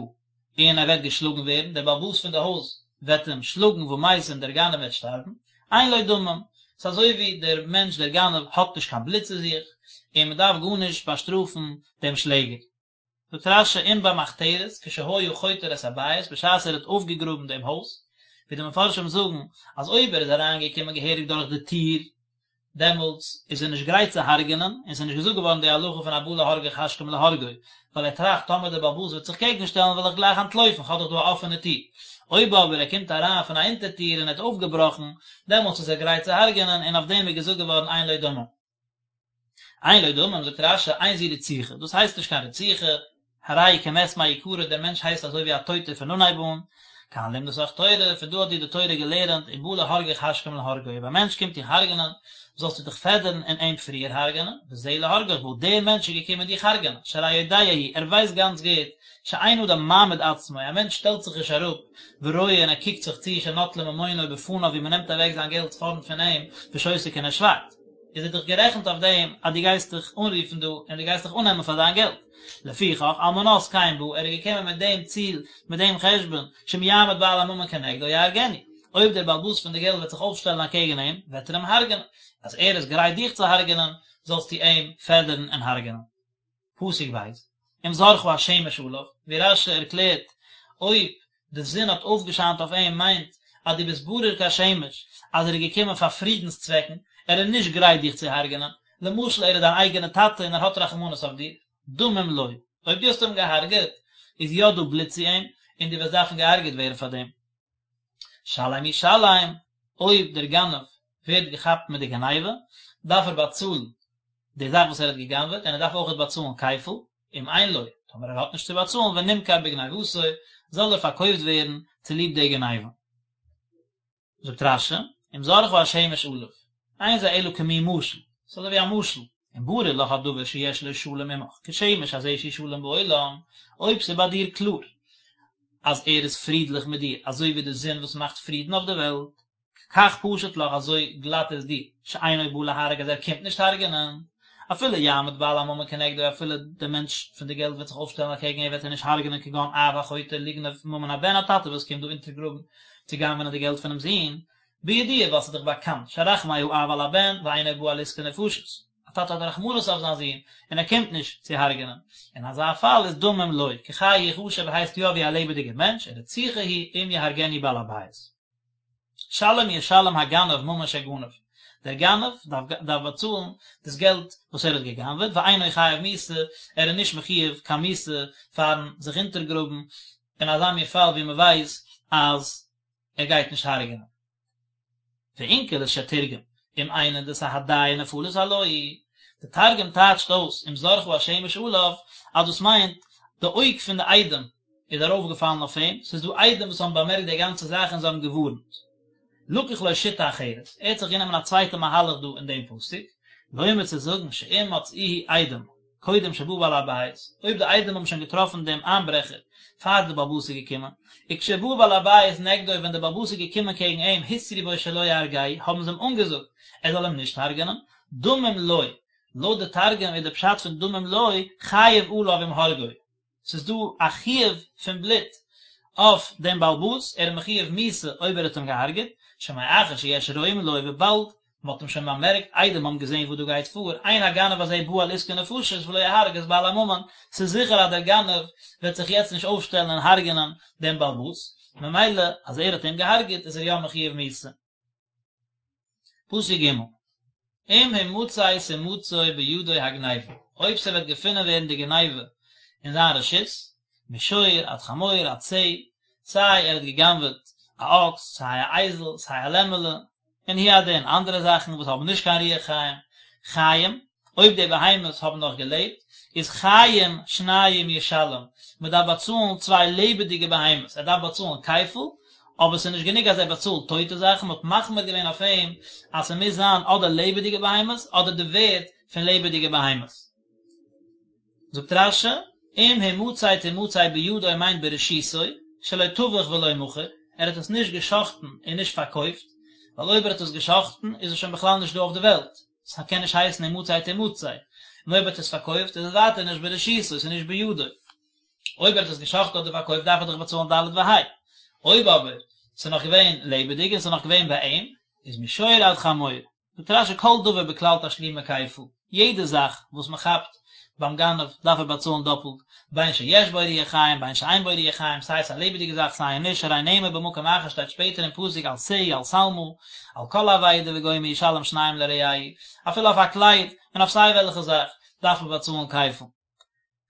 S1: און ער וועט געשלאגן ווערן, דער בעל הבית פון די הויז וועט אים שלאגן ומת און דער גנב וועט שטארבן, אין לו דמים, ס'איז אזוי ווי דער מענטש דער גנב האט נישט קיין בלוט צו זיך, און מען דארף גארנישט באשטראפן דעם שלעגער. זאגט רש"י אם במחתרת כשהיה חותר את הבית בשעת ער האט אויפגעגראבן דעם הויז, ווי די מפרשים זאגן אז אויב ער איז אריינגעקומען געהעריג דורך די טיר דעמאלטס איז ער נישט גרייט צו הרג'נען, און ס'איז נישט געזאגט געווארן די הלכה פון הבא להרגך השכם להרגו, ווייל ער טראכט טאמער דער בעל הבית וועט זיך קעגן שטעלן וועל איך גלייך אנטלויפן כ'האב דאך דא א אפענע טיר. אויב אבער ער קומט אריין פון א אונטער טיר און ער האט אויפגעבראכן, דעמאלטס איז ער גרייט צו הרג'נען און אויף דעם איז געזאגט געווארן אין לו דמים. אין לו דמים, זאגט רש"י, אין זו רציחה, דאס הייסט נישט קיין רציחה, הרי הוא כמת מעיקרא, דער מענטש הייסט אזוי ווי א טויטער פון אנהייב אן, כאן למדתך תורה, פון דא האט דיר די תורה געלערנט, אם בא להרגך השכם להרגו, אויב א מענטש קומט דיך הרג'נען, זאלסטו דיך פעדערן און אים פריער הרג'נען, וזה להרגך בא, דער מענטש איז געקומען דיך הרג'נען, שהרי יודע הוא, ער ווייסט גאנץ גוט, שאין אדם מעמיד עצמו, א מענטש שטעלט זיך נישט אראפ, ורואה און ער קוקט זיך צו, שנוטלים ממונו בפניו ווי מען נעמט אוועק זיין געלט פארנט פון אים, ושותק און ער שווייגט. איז ער דאך גערעכנט אויף דעם אז דו גייסט דיך אנרופן דא און דו גייסט דיך אננעמען פאר דיין געלט. לפיכך, על מנת כן בא, ער איז געקומען מיט דעם ציל, מיט דעם חשבון, שאם יעמוד בעל הממון כנגדו יהרגנו. אויב דער בעל הבית פון די געלט וועט זיך אויפשטעלן אקעגן אים, וועט ער אים הרג'נען. אז ער איז גרייט דיך צו הרג'נען, זאלסטו אים פעדערן און הרג'נען. פסוק ב', אם זרחה השמש עליו, ווי רש"י ערקלערט, אויב די זון האט אויפגעשיינט אויף אים מיינט אז דו ביסט ברור כשמש אז ער איז געקומען פאר פרידנס צוועקן, ער איז נישט גרייט דיך צו הרג'נען, למשל ער איז דיין אייגענע טאטע און ער האט רחמנות אויף דיר, דמים לו, אויב דו האסט אים געהארגעט, איז יא דא בלוט צו אים, און דו וועסט דארפן געהארגעט ווערן פאר דעם. שלם ישלם, אויב דער גנב ווערט געכאפט מיט די גניבה, דארף ער באצאלן די זאך וואס ער האט גע'גנב'עט, און ער דארף אויכעט באצאלן כפל, אם אין לו, טאמער ער האט נישט צו באצאלן, ונמכר בגניבתו, זאל ער פארקויפט ווערן צוליב די גניבה. זאגט רש"י, אם זרחה השמש עליו, אין זה אלא כמין משל, ס'איז אזוי ווי א משל, אם ברור לך הדבר שיש לו שלום עמך, כשמש הזה שהוא שלם בעולם, אויב ס'איז ביי דיר קלאר אז ער איז פרידליך מיט דיר, אזוי ווי די זון וואס מאכט פרידן אויף די וועלט, כך פשוט לך אזוי גלאט איז דיר, שאינו בא להרוג אז ער קומט נישט הרג'נען, אפילו יעמוד בעל הממון כנגדו אפילו דער מענטש פון די געלט וועט זיך אויפשטעלן אקעגן אים וועט ער נישט הרג'נען כגון אב החותר לגנוב ממון הבן א טאטע וואס קומט דא אונטערגראבן צו גנב'נען די געלט פונעם זון, בידוע ווייל ס'איז דאך באקאנט שרחמי האב על הבן ואינו בא על עסקי נפשות, א טאטע האט רחמנות אויף זיין זון און ער קומט נישט צו הרג'נען, אין אזא פאל איז דמים לו, כחי יחשב הייסט יא ווי א לעבעדיגער מענטש, ורציחה היא אם יהרגנו בעל הבית. שלם ישלם הגנב ממון שגנב, דער גנב דארף באצאלן דאס געלט וואס ער האט גע'גנב'עט, ואינו חייב מיתה, ער איז נישט מחיוב קיין מיתה פארן זיך אונטערגראבן אין אזא מין פאל ווי מען ווייסט אז ער גייט נישט הרג'נען. ואונקלוס שתרגם, אם עינא דסהדיא נפלת עלוהי, די תרגום טייטשט אויס אם זרחה השמש עליו אז דאס מיינט די אויג פון די עדים איז ארויפגעפאלן אויף אים, ס'איז דא עדים וואס האבן באמערקט די גאנצע זאך און זיי האבן געווארנט. לקח לו שיטה אחרת, ער האט זיך גענומען א צווייטע מהלך דא אין דעם פסוק, לומר צו זאגן שאם מצאוהו עדים קודם שבא בעל הבית, אויב די עדים האבן שוין געטראפן דעם איינברעכער פאר די בעל הבית איז געקומען, וכשבא בעל הבית נגדו ווען די בעל הבית איז געקומען קעגן אים התרו בו שלא יהרגהו האבן זיי אים אנגעזאגט ער זאל אים נישט הרג'נען, דמים לו, לויט די תרגום איז די פשט פון דמים לו, חייב עליו אם הרגו, ס'איז דא א חיוב פון בלוט אויף דעם בעל הבית, ער איז מחיוב מיתה אויב ער האט אים געהארגעט, שמאחר שיש רואים לו וויבאלד מ'האט אים שוין באמערקט, עדים האבן געזען וואס דא גייט פאר, אין הגנב הזה בא על עסקי נפשות ולא יהרוג את בעל הממון, ס'איז זיכער אז דער גנב וועט זיך יעצט נישט אויפשטעלן און הרג'נען דעם בעל הבית, ממילא אז ער האט אים געהארגעט איז ער יא מחיוב מיתה. פסוק ג' אם המצא תמצא בידו הגניבה, אויב ס'וועט געפונען ווערן די גניבה אין זיין רשות, משור עד חמור עד שה, סיי ער האט גע'גנב'עט א אקס, סיי א אייזל, סיי א לעמעלע, און הוא הדין אנדערע זאכן וואס האבן נישט קיין רוח חיים, חיים, אויב די בהמות האבן נאך געלעבט, איז חיים שניים ישלם, מען דארף באצאלן צוויי לעבעדיגע בהמות, ער דארף באצאלן כפל, אבער ס'איז נישט גענוג אז ער באצאלט טויטע זאכן, מען האט מחמיר געווען אויף אים אז ס'מוז זיין אדער לעבעדיגע בהמות אדער די ווערד פון לעבעדיגע בהמות. זאגט רש"י, אם המצא תמצא בידו מיינט ברשותו, שלא טבח ולא מכר, ער האט עס נישט גע'שחט'ן און נישט פארקויפט, ווייל אויב ער האט עס גע'שחט'ן איז עס שוין בכלל נישט דא אויף די וועלט, ס'קען נישט הייסן המצא תמצא, און אויב ער האט עס פארקויפט איז עס ווייטער נישט ברשותו, ס'איז נישט בידו. אויב ער האט עס גע'שחט'ן אדער פארקויפט דארף ער דאך באצאלן ד' וה'. אויב אבער ס'איז נאך געווען לעבעדיג און ס'איז נאך געווען ביי אים, איז משור עד חמור. זאגט רש"י כל דבר בכלל תשלומי כפל, יעדע זאך וואס מען כאפט ביים גנב דארף ער באצאלן דאפלט, בין שיש בו רוח חיים בין שאין בו רוח חיים, סיי עס איז א לעבעדיגע זאך סיי נישט, הרי נאמר במקום אחר שטייט שפעטער אין פסוק על שה על שלמה, על כל אבידה וגומר ישלם שניים לרעהו, אפילו אויף א קלייד און אויף סיי וועלכע זאך דארף מען באצאלן כפל.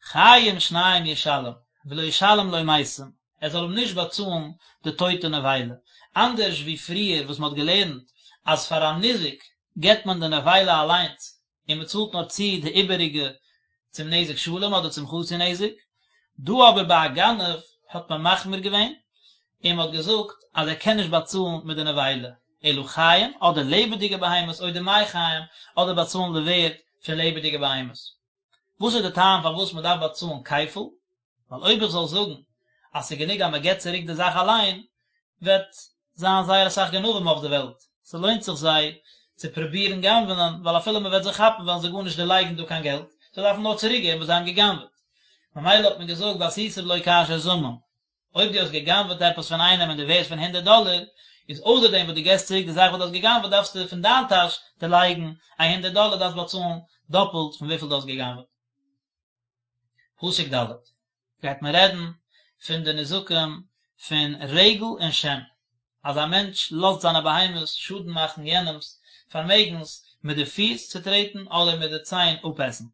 S1: חיים שניים ישלם, ולא ישלם לו מתים, ער זאל אים נישט באצאלן די טויטע נבילה, אנדערש ווי פריער וואס מען האט געלערנט אז פאר א ניזק געבט מען די נבילה אליינס און מען צאלט נאר צו די איבעריגע צום נזק שלם אדער צום חצי נזק, דא אבער ביי א גנב האט מען מחמיר געווען און מען האט געזאגט אז ער קען נישט באצאלן מיט די נבילה, אלא חיים אדער לעבעדיגע בהמות או דמי חיים אדער באצאלן די ווערד פון לעבעדיגע בהמות. וואס איז די טעם פארוואס מען דארף באצאלן כפל? ווייל אויב איך זאל זאגן אז ס'איז גענוג אז מען געבט צוריק די זאך אליין, וועט זיין זייער אסאך גנבים אויף די וועלט, ס'לוינט זיך זיי צו פרובירן גנב'נען, ווייל אפילו מען וועט זיי כאפן וועלן זיי גארנישט דערלייגן דא קיין געלט, זיי דארפן נאר צוריק געבן וואס זיי האבן געגנב'עט. ממילא האט מען געזאגט ועשיתם לו כאשר זמם. אויב דו האסט גע'גנב'עט עפעס פון איינעם אין די ווערד פון הונדערט דאלער, איז אויסער דעם וואס דו געסט צוריק די זאך וואס דו האסט גע'גנב'עט דארפסטו פון דיין טאש דערלייגן א הונדערט דאלער, דארפסט באצאלן דאפלט פון וויפיל דו האסט גע'גנב'עט. פסוק ד' גייט מען רעדן פון די נזקים פון רגל און שן, אז א מענטש לאזט זיינע בהמות שאדן מאכן יענעמ'ס פארמעגנס מיט די פיס צוטרעטן אדער מיט די ציין אפעסן.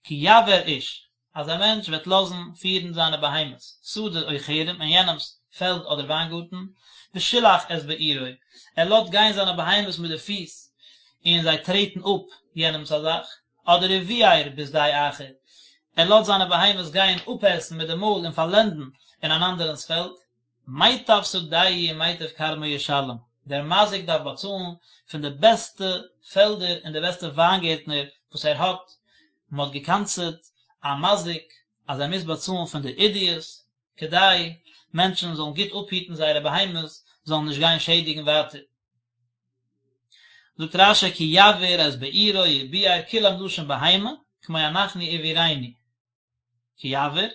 S1: כי יבער איש, אז א מענטש וועט לאזן פירן זיינע בהמות, שדה או כרם, אין יענעמ'ס פעלד אדער וויינגארטן, ושילח את בעירו, ער לאזט גיין זיינע בהמות מיט די פיס, און זיי טרעטן אפ יענעמ'ס א זאך, אדער וביער בשדה אחר, ער לאזט זיינע בהמות גיין אפעסן מיט די מויל און פארלענדן אין אן אנדערענס פעלד, מיטב שדהו ומיטב כרמו ישלם, דער מזיק דארף באצאלן פון די בעסטע פעלדער און די בעסטע וויינגערטנער וואס ער האט, מען האט גע'קנס'עט א מזיק אז ער מוז באצאלן פון די עידית, כדי מענטשן זאלן גוט אפהיטן זייערע בהמות זאלן נישט גיין שעדיגן ווייטער. זאגט רש"י כי יבער את בעירו וביער כולם לשון בהמה, כמו אנחנו ובעירנו. כי יבער,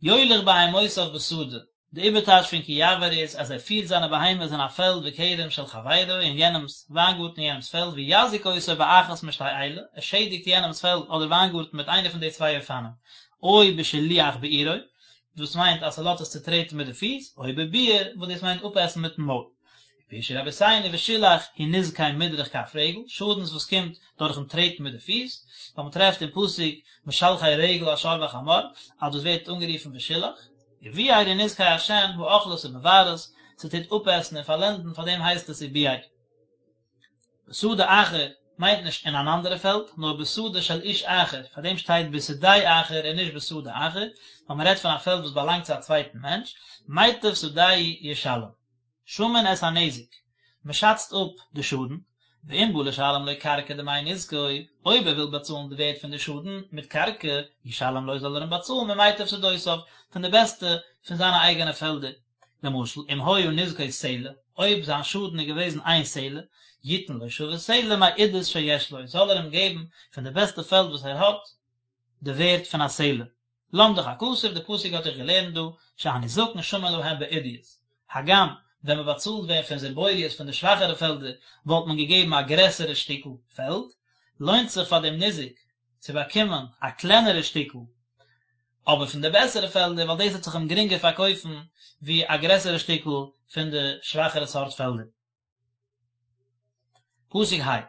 S1: יוליך בהמותיו בשדה, די איבערטייטש פון כי יבער איז אז ער פירט זיינע בהמות אין א פעלד וכרם של חברו אין יענעמס וויינגארטן אין יענעמס פעלד ויזיק אותו באחת משתי אלה, ער שעדיגט יענעמס פעלד אדער וויינגארטן מיט איינע פון די צוויי אופנים, או בשילוח בעירו, דאס מיינט אז ס'לאזט עס צוטרעטן מיט די פיס, או בביעור, וואס דאס מיינט אפעסן מיטן מויל. פירשו רבותינו ושילח הוא נזקי מדרך כף רגל, שאדנס וואס קומט דורכן טרעטן מיט די פיס, ווייל מען טרעפט אין פסוק משלחי רגל השור והחמור אז דאס ווערט אנגערופן ושילח, וביער הוא נזקי השן האוכלת ומבערת, ס'טוט אפעסן און פארלענדן פאר דעם הייסט עס וביער. בשדה אחר מיינט נישט אין אן אנדערע פעלד, נאר בשדה של איש אחר, פאר דעם שטייט בשדה אחר און נישט בשדה אחר, ווייל מען רעדט פון א פעלד וואס באלאנגט צו א צווייטן מענטש, מיטב שדהו ישלם. שמין את הנזק, מען שאצט אפ די שאדן, ואם בא לשלם לו קרקע דמי נזקו, אויב ער וויל באצאלן די ווערד פון די שאדן מיט קרקע, ישלם לו זאל ער אים באצאלן ממיטב שדותיו, פון די בעסטע פון זיינע אייגענע פעלדער. למשל, אם היה נזקו סלע, אויב זיין שאדן איז געוועזן איין סלע, יתן לו שווה סלע מעידית שיש לו, זאל ער אים געבן פון די בעסטע פעלד וואס ער האט, די ווערד פון א סלע. למדך הכתוב, די פסוק האט דיך געלערנט דא, שהנזקין שמין להם בעידית. הגם, ווען מען באצאלט ווען פון זיבורית פון די שוואכערע פעלדער, וואלט מען געגעבן א גרעסערע שטיקל פעלד, לוינט זיך פאר דעם ניזק צו באקומען א קלענערע שטיקל, אבער פון די בעסערע פעלדער, ווייל דאס וועט זיך אים גרינגער פארקויפן ווי א גרעסערע שטיקל פון די שוואכערע סארט פעלדער. פסוק ה',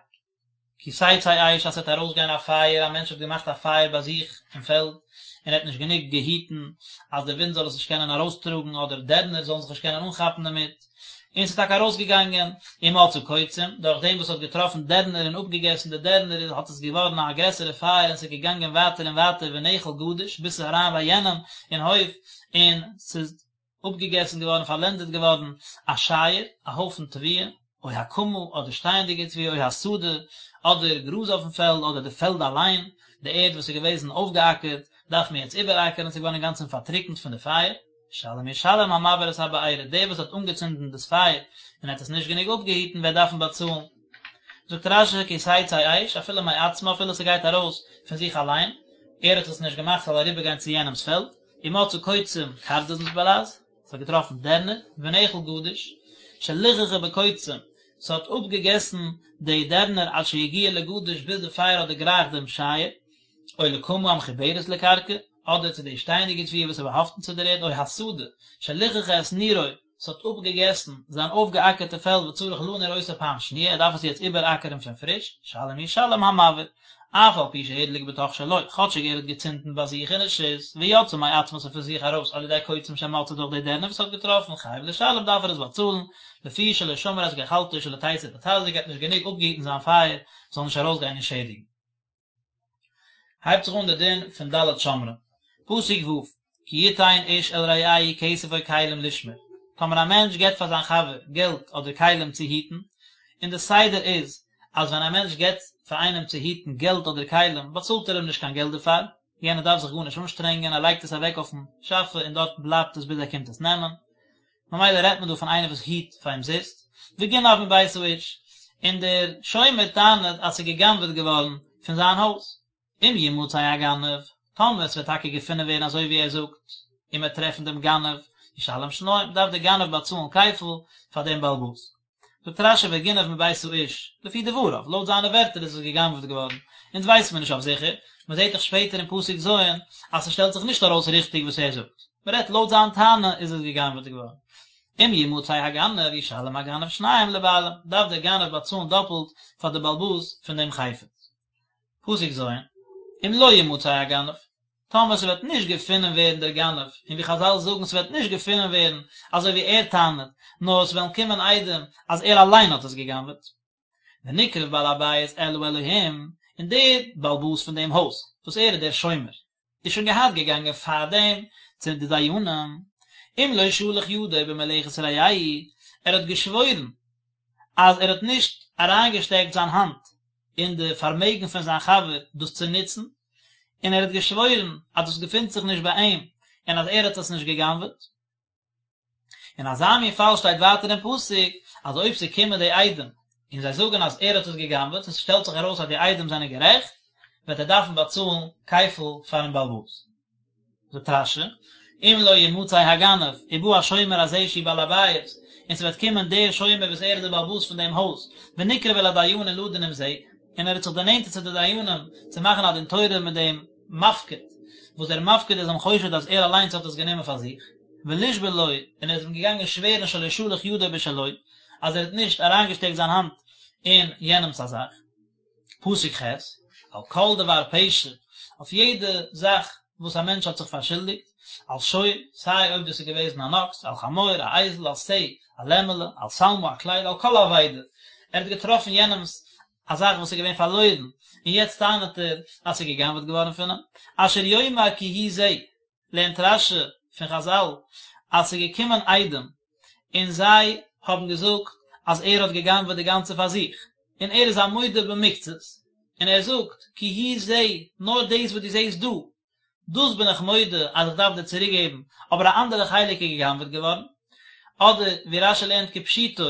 S1: כי תצא אש אז ס'וועט ארויסגיין א פייער, א מענטש האט געמאכט א פייער ביי זיך אין פעלד, און ער האט נישט גענוג געהיטן אז די ווינט זאל עס נישט קענען ארויסטראגן אדער דערנער זאלן זיך נישט קענען אנכאפן דערמיט, און ס'איז טאקע ארויסגעגאנגען, ומצאה קוצים, דורך דעם וואס ס'האט געטראפן דערנער און אפגעגעסן די דערנער איז האט עס געווארן א גרעסערע פייער און ס'איז געגאנגען ווייטער און ווייטער ונאכל גדיש ביז ס'איז אריין ביי יענעם אין הויף און ס'איז אפגעגעסן געווארן, פארלענדעט געווארן, א שייער, א הויפן תבואה, או הקמה, אדער שטייענדיגע תבואה, או השדה, אדער גראז אויפן פעלד, אדער די פעלד אליין. די ערד וואס איז געוועזן אויפגעאקערט דארף מען יעצט איבעראקערן, ס'איז געווארן אינגאנצן פארטריקנט פון די פייער, ישלם ישלם המבעיר את הבערה, דער וואס האט אנגעצינדן דאס פייער און האט עס נישט גענוג אפגעהיטן וועט דארפן באצאלן. זאגט רש"י כי תצא אש אפילו מעצמה אפילו ס'גייט ארויס פון זיך אליין, ער האט עס נישט געמאכט ס'זאל אריבערגיין צו יענעמ'ס פעלד, ומצא קוצים קרדונ'ס בלע"ז, ס'האט געטראפן דערנער, ונאכל גדיש, שליחכה בקוצים, ס'האט אפגעגעסן די דערנער עד שהגיע לגדיש ביז די פייער האט דערגרייכט דעם שייער, או לקמה המחוברת לקרקע, אדער צו די שטייענדיגע תבואה וואס איז באהאפטן צו דער ערד, או השדה, שליחכה את נירו, ס'האט אפגעגעסן זיין אויפגעאקערטע פעלד וצריך לניר אותה פעם שניה, ער דארף עס יעצט איבעראקערן פון פריש, ישלם ישלם המבעיר, אף על פי שהדליק בתוך שלו, כאטשיג ער האט געצינדן ביי זיך אין רשות, ויצאה מעצמה ס'איז פון זיך ארויס על ידי קוצים שמצא דורך די דערנער וואס ער האט געטראפן, חייב לשלם דארף ער עס באצאלן, לפי שלא שמר את גחלתו שלא תצא ותזיק ער האט נישט גענוג אפגעהיטן זיין פייער זאל נישט ארויסגיין און שעדיגן. הייבט זיך אן די דין פון ד' שומרים, פסוק ו', כי יתן איש אל רעהו כסף או כלים לשמור, טאמער א מענטש געבט פאר זיין חבר געלט אדער כלים צו היטן, און די סדר איז אז ווען א מענטש געבט פאר איינעם צו היטן געלט אדער כלים באצאלט ער אים נישט קיין געלט דערפאר, יענער דארף זיך גארנישט אנשטרענגען, ער לייגט עס אוועק אויפן שאפע און דארט בלייבט עס ביז ער קומט עס נעמען. ממילא רעדט מען דא פון איינער וואס היט פאר אומזיסט, וגנב מבית האיש, און דער שומר טענה'ט אז ס'איז גע'גנב'עט געווארן פון זיין הויז. אם ימצא הגנב, טאמער ס'וועט טאקע געפונען ווערן אזוי ווי ער זאגט, און מ'וועט טרעפן דעם גנב, ישלם שניים, דארף דער גנב באצאלן כפל פאר דעם בעל הבית. זאגט רש"י וגנב מבית האיש, לפי דבריו, לויט זיינע ווערטער איז עס גע'גנב'ט געווארן, אונז ווייסט מען נישט אויף זיכער, מען זעט דאך שפעטער אין פסוק ז' אז ס'שטעלט זיך נישט ארויס ריכטיג וואס ער זאגט, מען רעדט לויט זיין טענה איז עס גע'גנב'ט געווארן. אם ימצא הגנב ישלם הגנב שניים לבעלים, דארף דער גנב באצאלן דאפלט פאר די בעל הבית פון דעם חפץ. פסוק ז', אם לא ימצא הגנב, טאמער ס'וועט נישט געפונען ווערן דער גנב, און ווי חז"ל זאגן ס'וועט נישט געפונען ווערן אזוי ווי ער טענה'ט, נאר עס וועלן קומען עדים אז ער אליין האט עס גע'גנב'עט. ונקרב בעל הבית אל האלהים, און דער בעל הבית פון דעם הויז, וואס ער איז דער שומר, איז שוין געהאט געגאנגען פאר דעם צו די דיינים, אם לא שלח ידו במלאכת רעהו, ער האט געשוואוירן אז ער האט נישט אריינגעשטעקט זיין האנט אין די פארמעגן פון זיין חבר דאס צו נוצן, און ער האט געשוואוירן אז דאס געפינט זיך נישט ביי אים און אז ער האט עס נישט גע'גנב'עט. אין אזא מין פאל שטייט ווייטער אין פסוק אז אויב ס'קומען די עדים און זיי זאגן אז ער האט עס גע'גנב'עט און ס'שטעלט זיך ארויס אז די עדים זענען גערעכט, וועט ער דארפן באצאלן כפל פאר'ן בעל הבית. זאגט רש"י, אם לא ימצא הגנב, ובא השומר הזה שהוא בעל הבית, און ס'וועט קומען דער שומר וואס ער איז דער בעל הבית פון דעם הויז, ונקרב אל הדיינים לדון עם זה, און ער האט זיך דערנענטערט צו די דיינים צו מאכן א דין תורה מיט דעם מפקיד, וואס דער מפקיד איז אים חושד אז ער אליינס האט עס גענומען פאר זיך, ולשבוע לו, און ער איז אים געגאנגען שווערן שלא שלח ידו בשלו, אז ער האט נישט אריינגעשטעקט זיין האנט אין יענעמ'ס א זאך. פסוק ח', על כל דבר פשע, אויף יעדע זאך וואס א מענטש האט זיך פארשולדיגט, על שור, סיי אויב דאס איז געוועזן אן אקס, על חמור, א אייזל, על שה, א לעמעלע, על שלמה, א קלייד, על כל אבידה, ער האט געטראפן יענעמ'ס א זאך וואס איז געווען פארלוירן, און יעצט טענה'ט ער אז ס'איז גע'גנב'עט געווארן פון אים, אשר יאמר כי הוא זה, לערנט רש"י פון חז"ל אז ס'איז געקומען עדים און זיי האבן געזאגט אז ער האט גע'גנב'עט די גאנצע פאר זיך, און ער איז א מודה במקצת, און ער זאגט כי הוא זה, נאר דאס וואס דו זעסט דא, דאס בין איך מודה אז איך דארף דיר צוריק געבן, אבער א אנדערע חלק איז גע'גנב'עט געווארן. אדער ווי רש"י לערנט כפשוטו,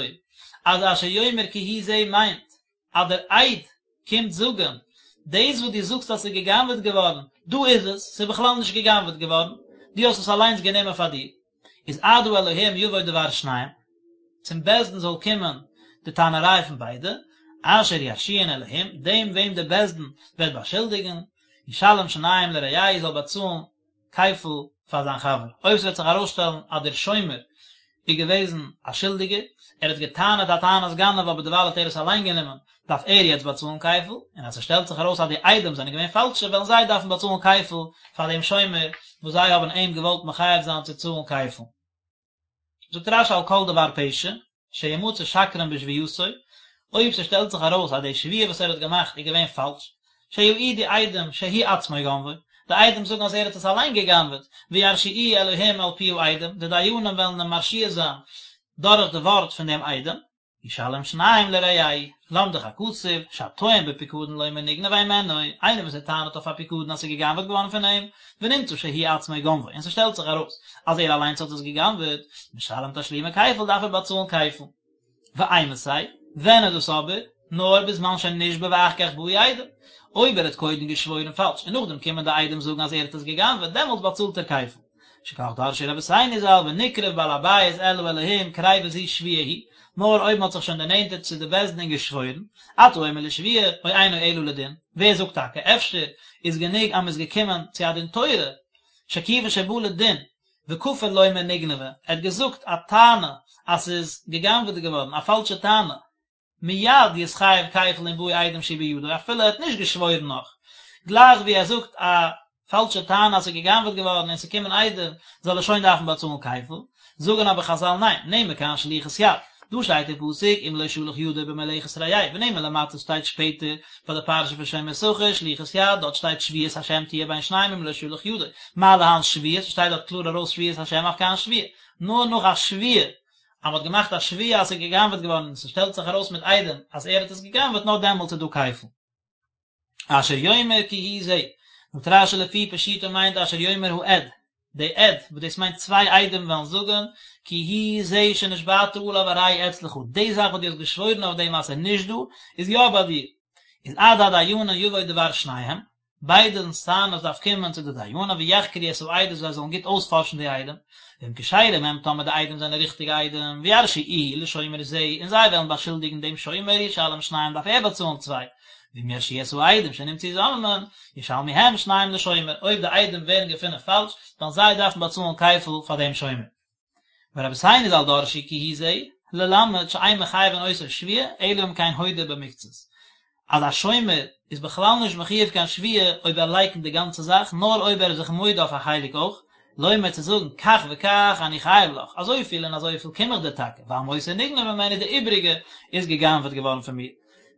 S1: אז אשר יאמר כי הוא זה מיינט אז דער עד קומט זאגן, דאס וואס דו זאגסט אז ס'איז גע'גנב'עט געווארן, דא איז עס, ס'איז בכלל נישט גע'גנב'עט געווארן, דו האסט עס אליינס גענומען פאר דיר, איז עד האלהים יבוא דבר שניהם, צום בית דין זאל קומען די טענה'ריי פון ביידע, אשר ירשיעון אלהים, דעם וועם דער בית דין וועט באשולדיגן, ישלם שניים לרעהו זאל באצאלן כפל פאר זיין חבר, אויב ס'וועט זיך ארויסשטעלן אז דער שומר איז געוועזן א שולדיגער, ער האט גע'טענה'ט א טענת גנב אבער דערווייל האט ער עס אליין גענומען, דארף ער יעצט באצאלן כפל, און אז ס'שטעלט זיך ארויס אז די עדים זענען געווען פאלשע וועלן זיי דארפן באצאלן כפל פאר דעם שומר וואס זיי האבן אים געוואלט מחייב זיין צו צאלן כפל. זאגט רש"י על כל דבר פשע, שימצא שקרן בשבועתו, אויב ס'שטעלט זיך ארויס אז די שבועה וואס ער האט געמאכט איז געווען פאלש, שיעידו עדים שהוא עצמו גנבו, די עדים זאגן אז ער האט עס אליין גע'גנב'עט, וירשיעוהו אלהים על פי העדים, די דיינים וועלן אים מרשיע זיין דורך די ווארט פון דעם עדים. ישלם שניים לרעהו, למדך הכתוב, שהטוען בפיקדון לומר נגנב הימנו, איינער וואס ער טענה'ט אויף א פיקדון אז ס'איז גע'גנב'עט געווארן פון אים, ונמצא שהוא עצמו גנבו, און ס'שטעלט זיך ארויס אז ער אליינס האט עס גע'גנב'עט, משלם תשלומי כפל דארף ער באצאלן כפל. ואימתי, ווען איז דאס אבער? נאר בזמן שנשבע ואחר כך באו עדים. אויב ער האט קודם געשוואוירן פאלש און נאכדעם קומען די עדים זאגן אז ער האט עס גע'גנב'עט, דעמאלטס באצאלט ער כפל. שכך דרשו רבותינו ז"ל ונקרב בעל הבית אל האלהים קריבה זו שבועה היא, נאר אויב מען האט זיך שוין דערנענטערט צו די בית דין און געשוואוירן, אתה אומר לשבועה, או אינו אלא לדין, ווער זאגט טאקע, אפשר איז גענוג אז מען איז געקומען צו א דין תורה, שכיוון שבא לדין, וכפר לומר נגנבה, ער האט געזאגט א טענה אז ס'איז גע'גנב'עט געווארן, א פאלשע טענה, מיד יתחייב כפל אם באו עדים שהוא בידו, אפילו ער האט נישט געשוואוירן נאך, גלייך ווי ער זאגט א פאלשע טענה אז ס'איז גע'גנב'עט געווארן און ס'קומען עדים, זאל ער שוין דארפן באצאלן כפל, זאגן אבער חזל ניין, נאמר כאן שליחות יד, דא שטייט אין פסוק אם לא שלח ידו במלאכת רעהו, ונאמר למטה שטייט שפעטער ביי די פרשה פון שומר שכר, שליחות יד, דארט שטייט שבועת השם תהיה בין שניהם אם לא שלח ידו, מה להלן שבועה, ס'שטייט דארט קלאר ארויס שבועת השם אף כאן שבועה, נאר נאך א שבועה, אז מ'האט געמאכט א שבועה אז ס'איז גע'גנב'עט געווארן און ס'שטעלט זיך ארויס מיט עדים אז ער האט עס גע'גנב'עט נאר דעמאלטס איז דא כפל. אשר יאמר כי הוא זה, זאגט רש"י לפי פשוטו מיינט אשר יאמר העד, די עד, וואס דאס מיינט צוויי עדים וועלן זאגן, כי הוא זה שנשבעת עליו הרי הוא אצלך, די זאך וואס דו האסט געשוואוירן אויף דעם אז ס'איז נישט דא, איז יא ביי דיר. איז עד הדיינים יבוא דבר שניהם, ביידענס טענות דארף קומען צו די דיינים ויחקרו את העדות זיי זאלן גוט אויספארשן די עדים, ואם כשרים הם טאמער די עדים זענען ריכטיגע עדים, וירשיעוהו לשומר זה, און זיי וועלן באשולדיגן דעם שומר ישלם שניים דארף ער באצאלן צוויי, ואם ירשיעו את העדים שנמצאו זוממין, ישלמו הם שניים לשומר, אויב די עדים ווערן געפונען פאלש, וועלן זיי דארפן באצאלן כפל פאר דעם שומר. ורבותינו ז"ל דרשו כי הוא זה, ללמד שאין מחייבין אותו שבועה, אלא אם כן הודה במקצת. אז א שומר איז בכלל נישט מחויב קיין שבועה אויב ער לייקנט די גאנצע זאך, נאר אויב ער איז זיך מודה אויף א חלק אויך, לומר צו זאגן כך וכך אני חייב לך, אזויפיל און אזויפיל קום איך דיר טאקע, והמותר נגנב ממני די איבריגע איז גע'גנב'עט געווארן פון מיר.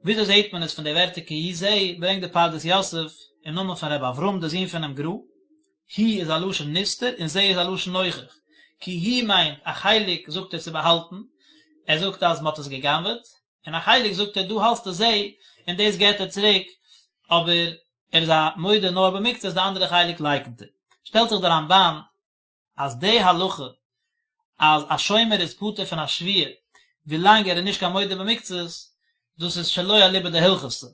S1: וויאזוי זעהט מען עס פון די ווערטער כי הוא זה, ברענגט די פרדס יוסף אין נאמען פון ר' אברהם די זון פונעם גר"א, הוא איז א לשון נסתר און זה איז א לשון נוכח, כי הוא מיינט א חלק זאגט ער צו באהאלטן, ער זאגט אז מען האט עס גע'גנב'עט, און א חלק זאגט ער דא האסטו זה און דאס געט ער צוריק, אבער ער איז א מודה נאר במקצת די אנדערע חלק לייקנט ער. שטעלט זיך די רמב"ן אז די הלכה אז א שומר איז פטור פון א שבועה ווילאנג ער איז נישט קיין מודה במקצת, דאס איז שלא אליבא דהלכתא,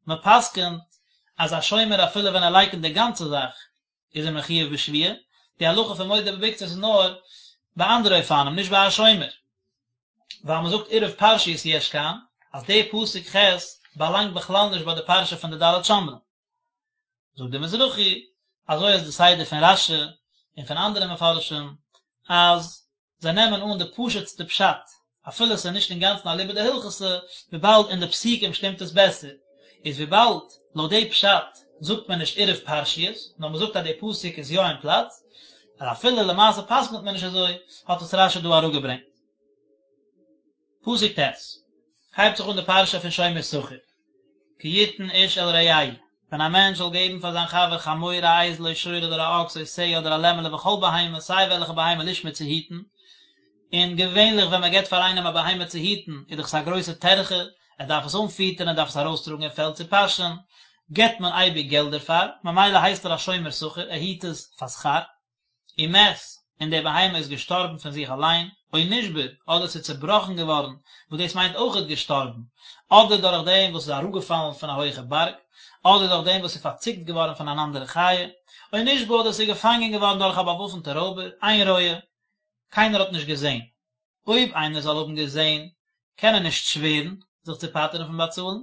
S1: מען פסק'נט אז א שומר אפילו ווען ער לייקנט די גאנצע זאך איז ער מחויב בשבועה, די הלכה פון מודה במקצת איז נאר ביי אנדערע אופנים נישט ביי א שומר, ווייל מען זאגט עירוב פרשיות יש כאן, אז די פסוק ח' באלאנגט בכלל נישט ביי די פרשה פון די ד' שומרים. זאגט דער מזרחי, אזוי איז די סדר פון רש"י און פון אנדערע מפרשים, אז זיי נעמען אן די פשוט'סטע פשט, אפילו עס איז נישט אינגאנצן אליבא דהלכתא, וויבאלד אין די פסוקים שטימט עס בעסער, איז וויבאלד לויט די פשט זאגט מען נישט עירוב פרשיות, נאר מען זאגט אז די פסוק איז יא אין פלאץ, אז אפילו למעשה פסק'נט מען נישט אזוי, האט עס רש"י דא אראפגעברענגט. פסוק ט', הייבט זיך אן די פרשה פון שומר שכר, כי יתן איש אל רעהו, ווען א מענטש זאל געבן פאר זיין חבר חמור א אייזל או שור אדער א אקס או שה אדער א לעמעלע וכל בהמה סיי וועלכע בהמה לשמור צו היטן, און געווענליך ווען מען געבט פאר איינעם א בהמה צו היטן איז דאך עס א גרויסע טרחה, ער דארף עס אנפיטערן ער דארף עס ארויסטראגן אין פעלד צו פאשען, געבט מען אייביג געלט דערפאר, ממילא הייסט ער א שומר שכר, ער היט עס פאר שכר. ומת, און די בהמה איז געשטארבן פון זיך אליין, או נשבר, אדער ס'איז צעבראכן געווארן, וואס דאס מיינט אויכעט געשטארבן, אדער דורך דעם וואס ס'איז אראפגעפאלן פון א הויכע בארג, אדער דורך דעם וואס ס'איז פארציקט געווארן פון אן אנדערע חיה, או נשבה, אדער ס'איז געפאנגען געווארן דורך א באוואפנטע רויבער, אין רואה, קיינער האט נישט געזען. אויב איינער זאל האבן געזען, קען ער נישט שווערן זיך צו פטר'ן פון באצאלן,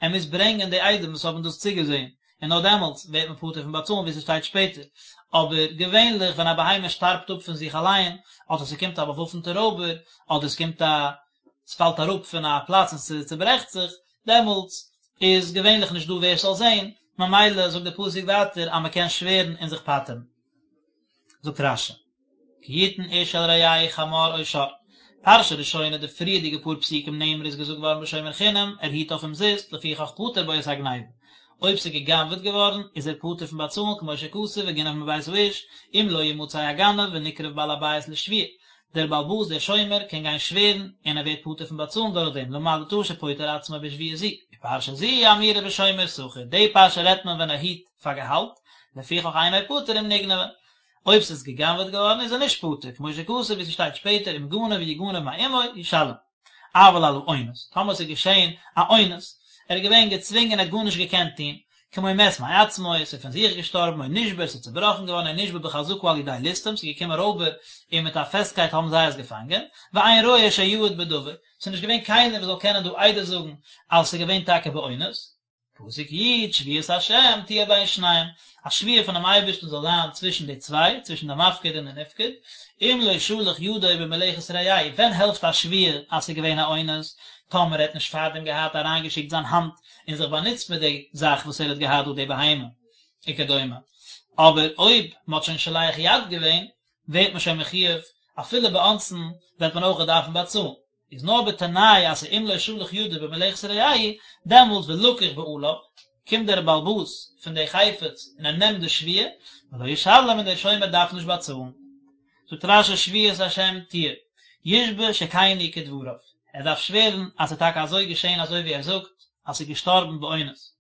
S1: ער מוז ברענגען די עדים וואס האבן דאס צוגעזען, און נאר דעמאלטס ווערט מען פטור פון באצאלן ווי ס'שטייט שפעטער. אבער געווענליך ווען א בהמה שטארבט אפ פון זיך אליין, אדער ס'קומט א באוואפנטע רויבער, אדער ס'קומט א ס'פאלט אראפ פון א פלאץ און ס'צוברעכט זיך, דעמאלטס איז געווענליך נישט דא ווער ס'זאל זען, ממילא זאגט דער פסוק ווייטער אז מ'קען שווערן און זיך פטר'ן. זאגט רש"י. כי יתן איש אל רעהו חמור או שור. פרשה ראשונה, די פריערדיגע פאר פסוקים נאמרה איז געזאגט געווארן בשומר חינם, ער היט אויף אומזיסט, לפיכך פטר בו את הגניבה. אויב ס'איז גע'גנב'עט געווארן, איז ער פטור פון באצאלן כמו שכתוב וגנב מבית האיש, אם לא ימצא הגנב ונקרב בעל הבית לשבועה. דער בעל הבית דער שומר קען גיין שווערן און ער ווערט פטור פון באצאלן דורך דעם, למדת שפוטר עצמו בשבועה זו. ופרשה זו אמורה בשומר שכר, די פרשה רעדט מען ווען ער היט פאר געהאלט, לפיכך אינו פטור אם נגנבה, אויב ס'איז גע'גנב'עט געווארן איז ער נישט פטור, כמו שכתוב ווי ס'שטייט שפעטער אם גנב יגנב מעמו ישלם. אבל על האונס, טאמער ס'איז געשען א אונס, ער איז געווען געצווינגען ער האט גארנישט געקענט טון, כמו מת מעצמו, ס'איז פון זיך געשטארבן, או נשבר, ס'איז צובראכן געווארן, או נשבה בחזקה על ידי ליסטים, ס'איז געקומען רויבער און מיט א פעסטקייט האבן זיי עס געפאנגען, ואין רואה שיעיד בדבר, ס'איז נישט געווען קיינער וואס זאל קענען דא עדות זאגן אז ס'איז געווען טאקע באונס. פסוק י', שבועת השם תהיה בין שניהם, א שבועה פונעם אייבערשטן זאל זיין צווישן די צוויי, צווישן די מפקיד און די נפקד, אם לא שלח ידו במלאכת רעהו, ווען העלפט א שבועה אז ס'איז געווען א אונס? טאמער ער האט נישט פארדעם געהאט אריינגעשיקט זיין האנט און זיך באנוצט מיט די זאך וואס ער האט געהאט דא די בהמה וכדומה, אבער אויב מ'האט שוין שולח יד געווען, ווערט מען שוין מחויב, אפילו באונסין וועט מען אויך דארפן באצאלן. איז נאר בתנאי אז ס'אם לא שלח ידו במלאכת רעהו, דעמאלט ולקח בעליו, קומט דער בעל הבית פון די חפץ און ער נעמט די שבועה, ולא ישלם און דער שומר דארף נישט באצאלן. זאגט רש"י שבועת השם תהיה, ישבע שכן הוא כדבריו, ער דארף שווערן אז ס'איז טאקע אזוי געשען אזוי ווי ער זאגט אז ס'איז געשטארבן באונס.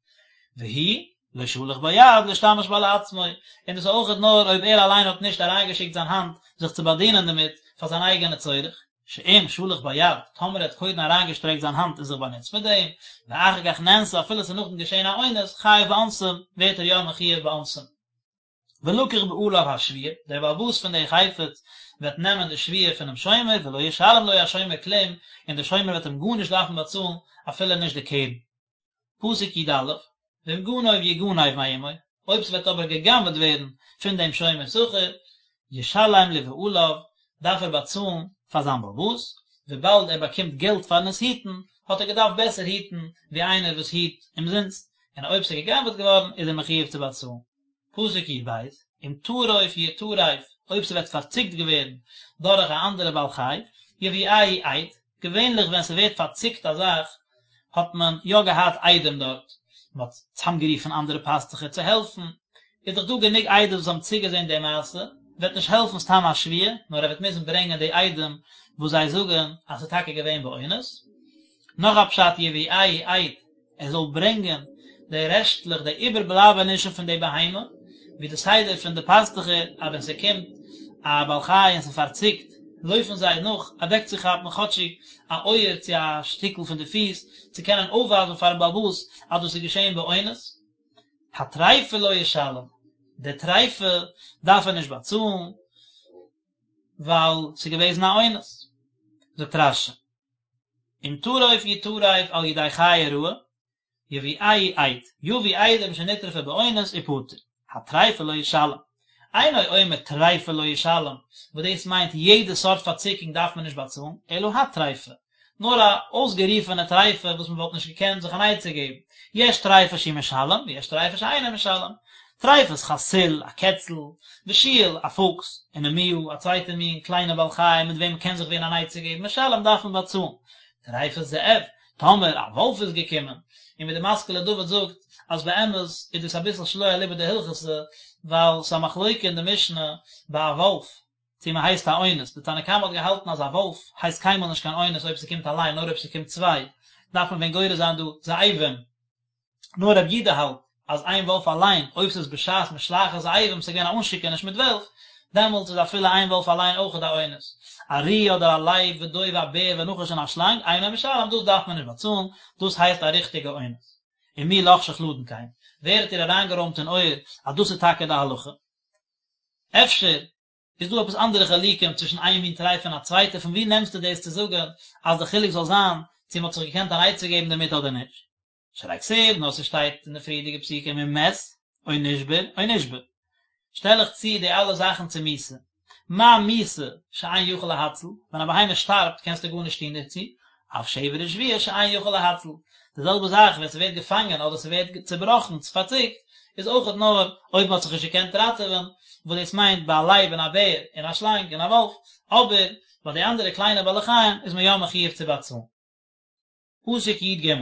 S1: והוא לא שלח בה יד להשתמש בה לעצמו, און דאס איז אויכעט נאר אויב ער אליין האט נישט אריינגעשיקט זיין האנט זיך צו באדינען דערמיט פאר זיין אייגענע צורך. שאם שלח בה יד, טאמער ער האט קודם אריינגעשטרעקט זיין האנט און זיך באנוצט מיט דעם, ואחר כך נאנסה אפילו ס'איז נאכדעם געשען א אונס, חייב באונסין, ווערט ער יא מחויב באונסין. ולקח בעליו השבועה, דער בעל הבית פון די חפץ וועט נעמען די שבועה פונעם שומר, ולא ישלם לו השומר כלום, און דער שומר וועט אים גארנישט דארפן באצאלן, אפילו נישט די קרן. פסוק י"א, ואם גנוב יגנב מעמו, אויב ס'וועט אבער גע'גנב'עט ווערן פון דעם שומר שכר, ישלם לבעליו, דארף ער באצאלן פאר זיין בעל הבית, וויבאלד ער באקומט געלט פארן עס היטן, האט ער געדארפט בעסער היטן ווי איינער וואס היט אומזינסט, און אויב ס'איז גע'גנב'עט געווארן איז ער מחויב צו באצאלן. פסוק י"ב, אם טרוף יטרף, אויב ס'וועט פארציקט געווערן דורך א אנדערע בעל חי, יביאהו עד, געווענליך ווען ס'ווערט פארציקט א זאך האט מען יא געהאט עדים דארט, מ'האט צאמגערופן אנדערע פאסטוכער צו העלפן, איז דאך דא גענוג עדות וואס האבן צוגעזען די מעשה, וועט נישט העלפן סתם א שבועה, נאר ער וועט מוזן ברענגען די עדים וואס זיי זאגן אז ס'איז טאקע געווען באונס. נאך א פשט יביאהו עד, ער זאל ברענגען די רעשטלעך, די איבערבלייבענישן פון די בהמה, ווי די סדר פון די פאסטוכער, אז ווען ס'קומט א בעל חי און ס'פארציקט, לויפן זיי נאך אוועקצוכאפן כאטשיג א אויער צו א שטיקל פון די פיס, צו קענען אויפווייזן פארן בעל הבית אז דאס איז געשען באונס. הטריפה לא ישלם, די טריפה דארף ער נישט באצאלן, ווייל ס'איז געוועזן א אונס. זאגט רש"י. אם טרוף יטרף על ידי חיה רעה, יביאהו עד, יביא עדים שנטרפה באונס ופטור, הטריפה לא ישלם. אינו אומר טריפה לא ישלם, וואס דאס מיינט יעדע סארט פארציקונג דארף מען נישט באצאלן, אלא הטריפה, נאר א אויסגערופענע טריפה וואס מען וואלט נישט געקענט זיך אן עצה געבן, יש טריפה שהוא משלם ויש טריפה שאינו משלם, טריפת חתול, א קעצל, ושועל, א פוקס, ונמיה, א צווייטע מין קליינע בעל חי מיט וועם מ'קען זיך ווען אן עצה געבן, משלם דארף מען באצאלן. טריפת זאב, טאמער א וואלף איז געקומען, און ווי די משכיל לדוד זאגט אז באמת איז דאס אביסל שלא אליבא דהלכתא, ווייל ס'איז א מחלוקה אין די משנה ביי א וואלף צו מ'הייסט א אונס, די תנא קמא האט געהאלטן אז א וואלף הייסט קיינמאל נישט קיין אונס אויב ס'קומט אליין נאר אויב ס'קומט צוויי, דארף מען ווען גורס זיין דא זאבים. נאר רבי יודא האלט אז איין וואלף אליין, אויב ס'איז בשעת משלחת זאבים, ס'איז געווען א אנשיקעניש מיט וועלף, דעמאלטס איז אפילו איין וואלף אליין אויכעט א אונס. ארי אדער א לייב ודוב א בער ונחש און א שלאנג, אינו משלם, דאס דארף מען נישט באצאלן, דאס הייסט א ריכטיגע אונס. ומי לחשך לדון כן? ווער האט דיר אריינגערוימט אין אויער אז דאס איז טאקע די הלכה? אפשר איז דא עפעס אנדערע חילוקים צווישן איין מין טריפה און א צווייטע? פון וואו נעמסטו דאס צו זאגן אז די חילוק זאל זיין צו מ'האט זיך געקענט אן עצה געבן דערמיט אדער נישט? שהרי כתיב, נאר ס'שטייט אין די פריערדיגע פסוקים אם מת, או נשבר, או נשבה. שטעל איך צו די אלע זאכן צו מיתה. מה מיתה שאין יכול להציל, ווען א בהמה שטארבט קענסטו גארנישט טון דערצו, אף שבר ושביה שאין יכול להציל. די זעלבע זאך ווען ס'ווערט געפאנגען אדער ס'ווערט צובראכן, פארציקט, איז אויכעט נאר אויב מ'האט זיך נישט געקענט ראטעווען, וואס דאס מיינט ביי א לייב און א בער און א שלאנג און א וואלף, אבער ביי די אנדערע קליינע בעלי חיים איז מען יא מחויב צו באצאלן. פסוק י"ג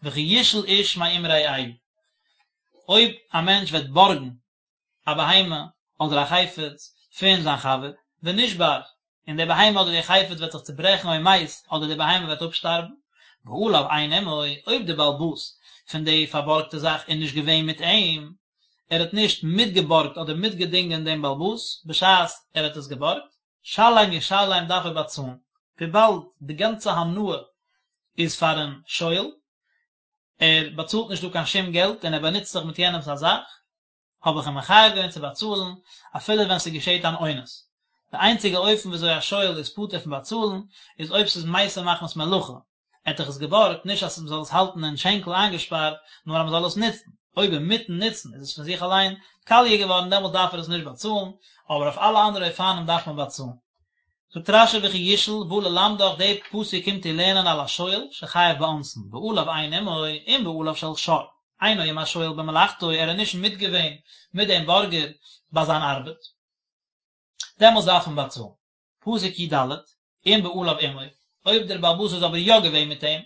S1: וכי ישאל איש מעם רעהו, אויב א מענטש וועט בארגן א בהמה אדער א חפץ. פון זיין חבר, ונשבר, און די בהמה אדער די חפץ וועט זיך צוברעכן או מת, אדער די בהמה וועט אפשטארבן, בעליו אין עמו, אויב די בעל הבית פון די פארבארגטע זאך איז נישט געווען מיט אים, ער האט נישט מיטגעבארגט אדער מיטגעדינגען דעם בעל הבית בשעת ער האט עס געבארגט, שלם ישלם דארף ער באצאלן, וויבאלד די גאנצע הנאה איז פארן שואל, ער באצאלט נישט דא קיין שום געלט און ער באנוצט זיך מיט יענעמס א זאך, האב איך אים מחייב געווען צו באצאלן אפילו ווען ס'געשעט אן אונס. די איינציגע אופן וויאזוי א שואל איז פטור פון באצאלן איז אויב ס'איז מתה מחמת מלאכה, ער האט דאך עס געבארגט נישט אז מ'זאל עס האלטן אין שענקל איינגעשפארט, נאר אז מ'זאל עס נוצן, אויב אינמיטן נוצן איז עס פון זיך אליין קאליע געווארן דעמאלטס דארף ער עס נישט באצאלן, אבער אויף אלע אנדערע אופנים דארף מען באצאלן. זאגט רש"י וכי ישאל בא ללמדך די פסוק קומט דיר לערנען על השואל שחייב באונסין בעליו אין עמו אם בעליו של שור אינו עם השואל במלאכתו ער איז נישט מיטגעווען מיט דעם בארגער ביי זיין ארבעט דעמאלטס דארף מען באצאלן. פסוק י"ד אם בעליו עמו אויב דער בעל הבית איז אבער יא געווען מיט אים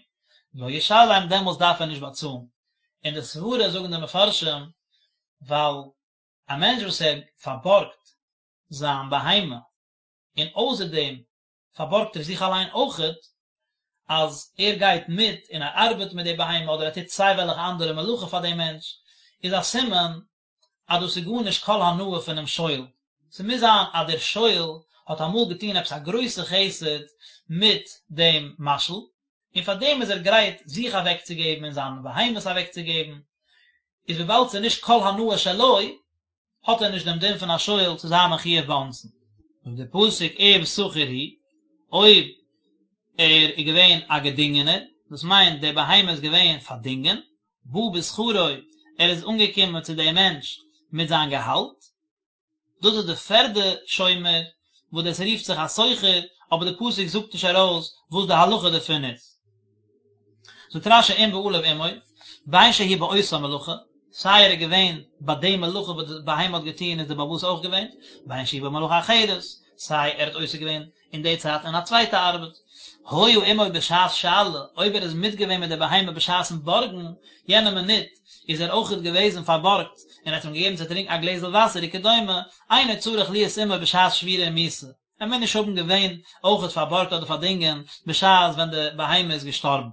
S1: לא ישלם דעמאלטס דארף ער נישט באצאלן און די סברה זאגן די מפרשים ווייל א מענטש וואס ער פארבארגט זיין בהמה, און אויסער דעם פארבארגט ער זיך אליין אויכעט, אז ער גייט מיט און ער ארבעט מיט די בהמה אדער ער טוט סיי וועלכע אנדערע מלאכה פאר דעם מענטש, איז א סימן אז דאס איז גארנישט כל הנאה פונעם שואל. ס'מוז זיין אז דער שואל האט אמאל געטון עפעס א גרויסע חסד מיט דעם משאיל, און פאר דעם איז ער גרייט זיך אוועקצוגעבן און זיינע בהמות אוועקצוגעבן, איז וויבאלד ס'איז נישט כל הנאה שלו, האט ער נישט דעם דין פון א שואל צו זיין מחויב באונסין. זאגט דער פסוק אם שכיר הוא, אויב ער איז געווען א געדינגענער, דאס מיינט די בהמה איז געווען פארדינגען, בא בשכרו, ער איז אנגעקומען צו דעם מענטש מיט זיין געהאלט, דאס איז די פערדע שומר וואס דאס רופט זיך א שוכר, אבער די פסוק זאגט נישט ארויס וואס די הלכה דערפון איז. זאגט רש"י אם בעליו עמו, בין שהוא באותה מלאכה, סיי ער איז געווען ביי די מלאכה וואס די בהמה האט געטון איז די בעל הבית אויך געווען, בין שהוא במלאכה אחרת, סיי ער האט עוסק געווען אין די צייט אין א צווייטע ארבעט. היה עמו בשעת שאלה, אויב ער איז מיטגעווען מיט די בהמה בשעת'ן בארגן, יענע מינוט איז ער אויכעט געוועזן פארבארגט און האט אים געגעבן צו טרינקן א גלעזל וואסער וכדומה, אינו צריך להיות עמו בשעת שבירה ומיתה. ער מוז נישט האבן געווען אויכעט פארבארגט אדער פארדינגען בשעת ווען די בהמה איז געשטארבן.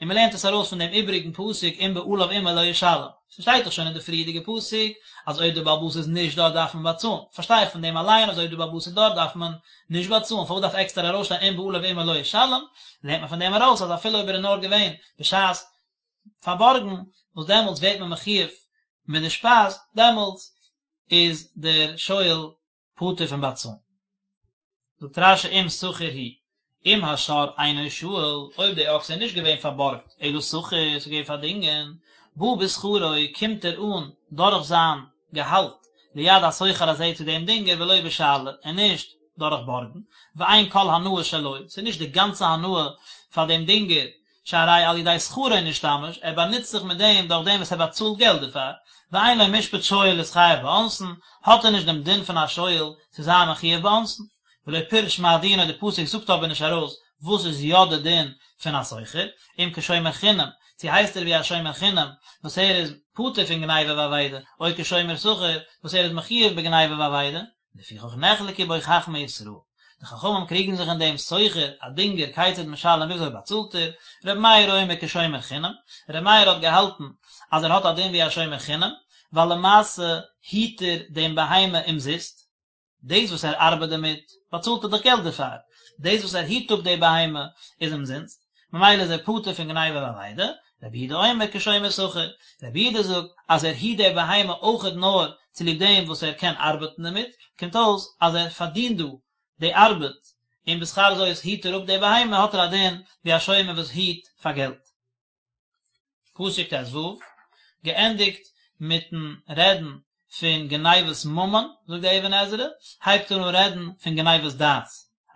S1: און מען לערנט עס ארויס פון דעם איבריגן פסוק אם בעליו עמו לא ישלם. ס'שטייט דאך שוין אין די פריערדיגע פסוק אז אויב דער בעל הבית איז נישט דארט דארף מען באצאלן. פארשטיי איך פון דעם אליין אז אויב דער בעל הבית איז דארט דארף מען נישט באצאלן, פארוואס דארף עקסטער ארויסשטיין אם בעליו עמו לא ישלם? לערנט מען פון דעם ארויס אז אפילו אויב ער איז נאר געווען בשעת פארבארגן, וואס דעמאלטס ווערט מען מחויב מיט די שפייז, דעמאלטס איז דער שואל פטור פון באצאלן. זאגט רש"י אם שכיר הוא, אם השור אינו שאול, אויב די אקס איז נישט געווען פארבארגט, אלא שכיר, ס'איז געווען פארדינגען, בא בשכרו, קומט ער אן דורך זיין געהאלט, ליד השוכר הזה צו דעם דינגער ולא בשאלה, און נישט דורך בארגן, ואין כל הנאה שלו, ס'איז נישט די גאנצע הנאה פאר דעם דינגער, שהרי על ידי שכרו נשתמש, ער באנוצט זיך מיט דעם דורך דעם וואס ער באצאלט געלט דערפאר, ואין לו משפט שואל להתחייב באונסין, האט ער נישט דעם דין פון א שואל צו זיין מחויב באונסין. ולא פירש מה דינו די פסוק זאגט אבער נישט ארויס וואס איז יא די דין פון א שוכר, אם כשומר חינם, צו הייסט ער ווי א שומר חינם וואס ער איז פטור פון גניבה ואבידה, או כשומר שכר וואס ער איז מחויב בגניבה ואבידה, לפיכך נחלקו בו חכמי ישראל, די חכמים קריגן זיך אין דעם שוכר, א דינגער, כיצד משלם וויאזוי באצאלט ער, ר' מאיר אומר כשומר חינם, ר' מאיר האט געהאלטן אז ער האט א דין ווי א שומר חינם, ווייל למעשה היט ער דעם בהמה אומזיסט, דאס וואס ער ארבעט דערמיט, באצאלט ער דאך געלט דערפאר, דאס וואס ער היט אפ די בהמה איז אומזינסט, ממילא איז ער פטור פון גניבה ואבידה, רבי יהודה אומר כשומר שכר, רבי יהודה זאגט אז ער היט די בהמה אויכעט נאר צוליב דעם וואס ער קען ארבעטן דערמיט, קומט אויס אז ער פארדינט דא די ארבעט, און בשכר זאת היט ער אפ די בהמה האט ער א דין ווי א שומר וואס היט פאר געלט. פסוק ט"ו, געענדיגט מיטן רעדן פון גניבת ממון, זאגט די אבן עזרא, הייבט ער אן רעדן פון גניבת דעת,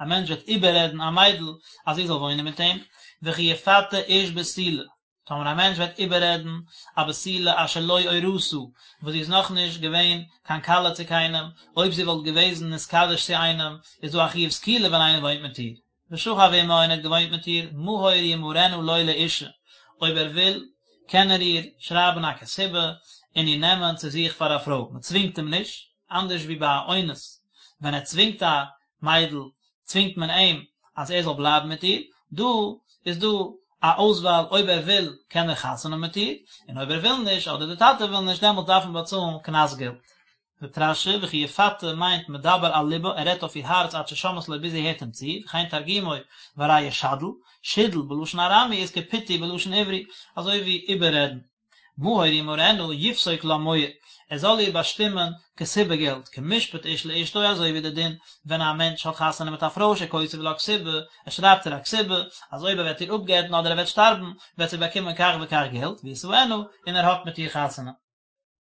S1: א מענטש וועט איבעררעדן א מיידל אז זי זאל וואוינען מיט אים, וכי יפתה איש בתולה, טאמער א מענטש וועט איבעררעדן א בתולה אשר לא אורשה, וואס זי איז נאכנישט געווען קיין כלה צו קיינעם, אויב זי וואלט געוועזן נתקדש צו איינעם, איז דא א חיוב סקילה ווען איינער וואוינט מיט איר. ושכב עמה און ער האט געוואוינט מיט איר, מהור ימהרנה לו לאשה, אויב ער וויל, קען ער איר שרייבן א כתובה און איר נעמען צו זיך פאר א פרוי, מען צווינגט אים נישט, אנדערש ווי ביי א אונס. ווען ער צווינגט א מיידל צווינגט מען אים אז ער זאל בלייבן מיט איר, דא איז דא א אויסוואל אויב ער וויל קען ער חתונה האבן מיט איר, און אויב ער וויל נישט אדער די טאטע וויל נישט דעמאלטס דארף מען באצאלן קנס געלט. זאגט רש"י וכי יפתה מיינט מדבר על לבה ער רעדט אויף איר הארץ עד ששומעת לו ביז זי הערט אים צו, וכן תרגומו והרי ישדל, שידול בלשון ארמי איז כפיתוי בלשון עברי, אזוי ווי איבעררעדן. מהור ימהרנה יפסוק לה מוהר, ער זאל איר באשטימען כתובה געלט, כמשפט איש לאשתו אזוי ווי די דין ווען א מענטש האט חתונה מיט א פרוי שכותב לה כתובה, ער שרייבט איר א כתובה, אז אויב ער וועט איר אפגט'ן אדער ער וועט שטארבן, וועט זי באקומען כך וכך געלט, וישאנה, און ער האט מיט איר חתונה.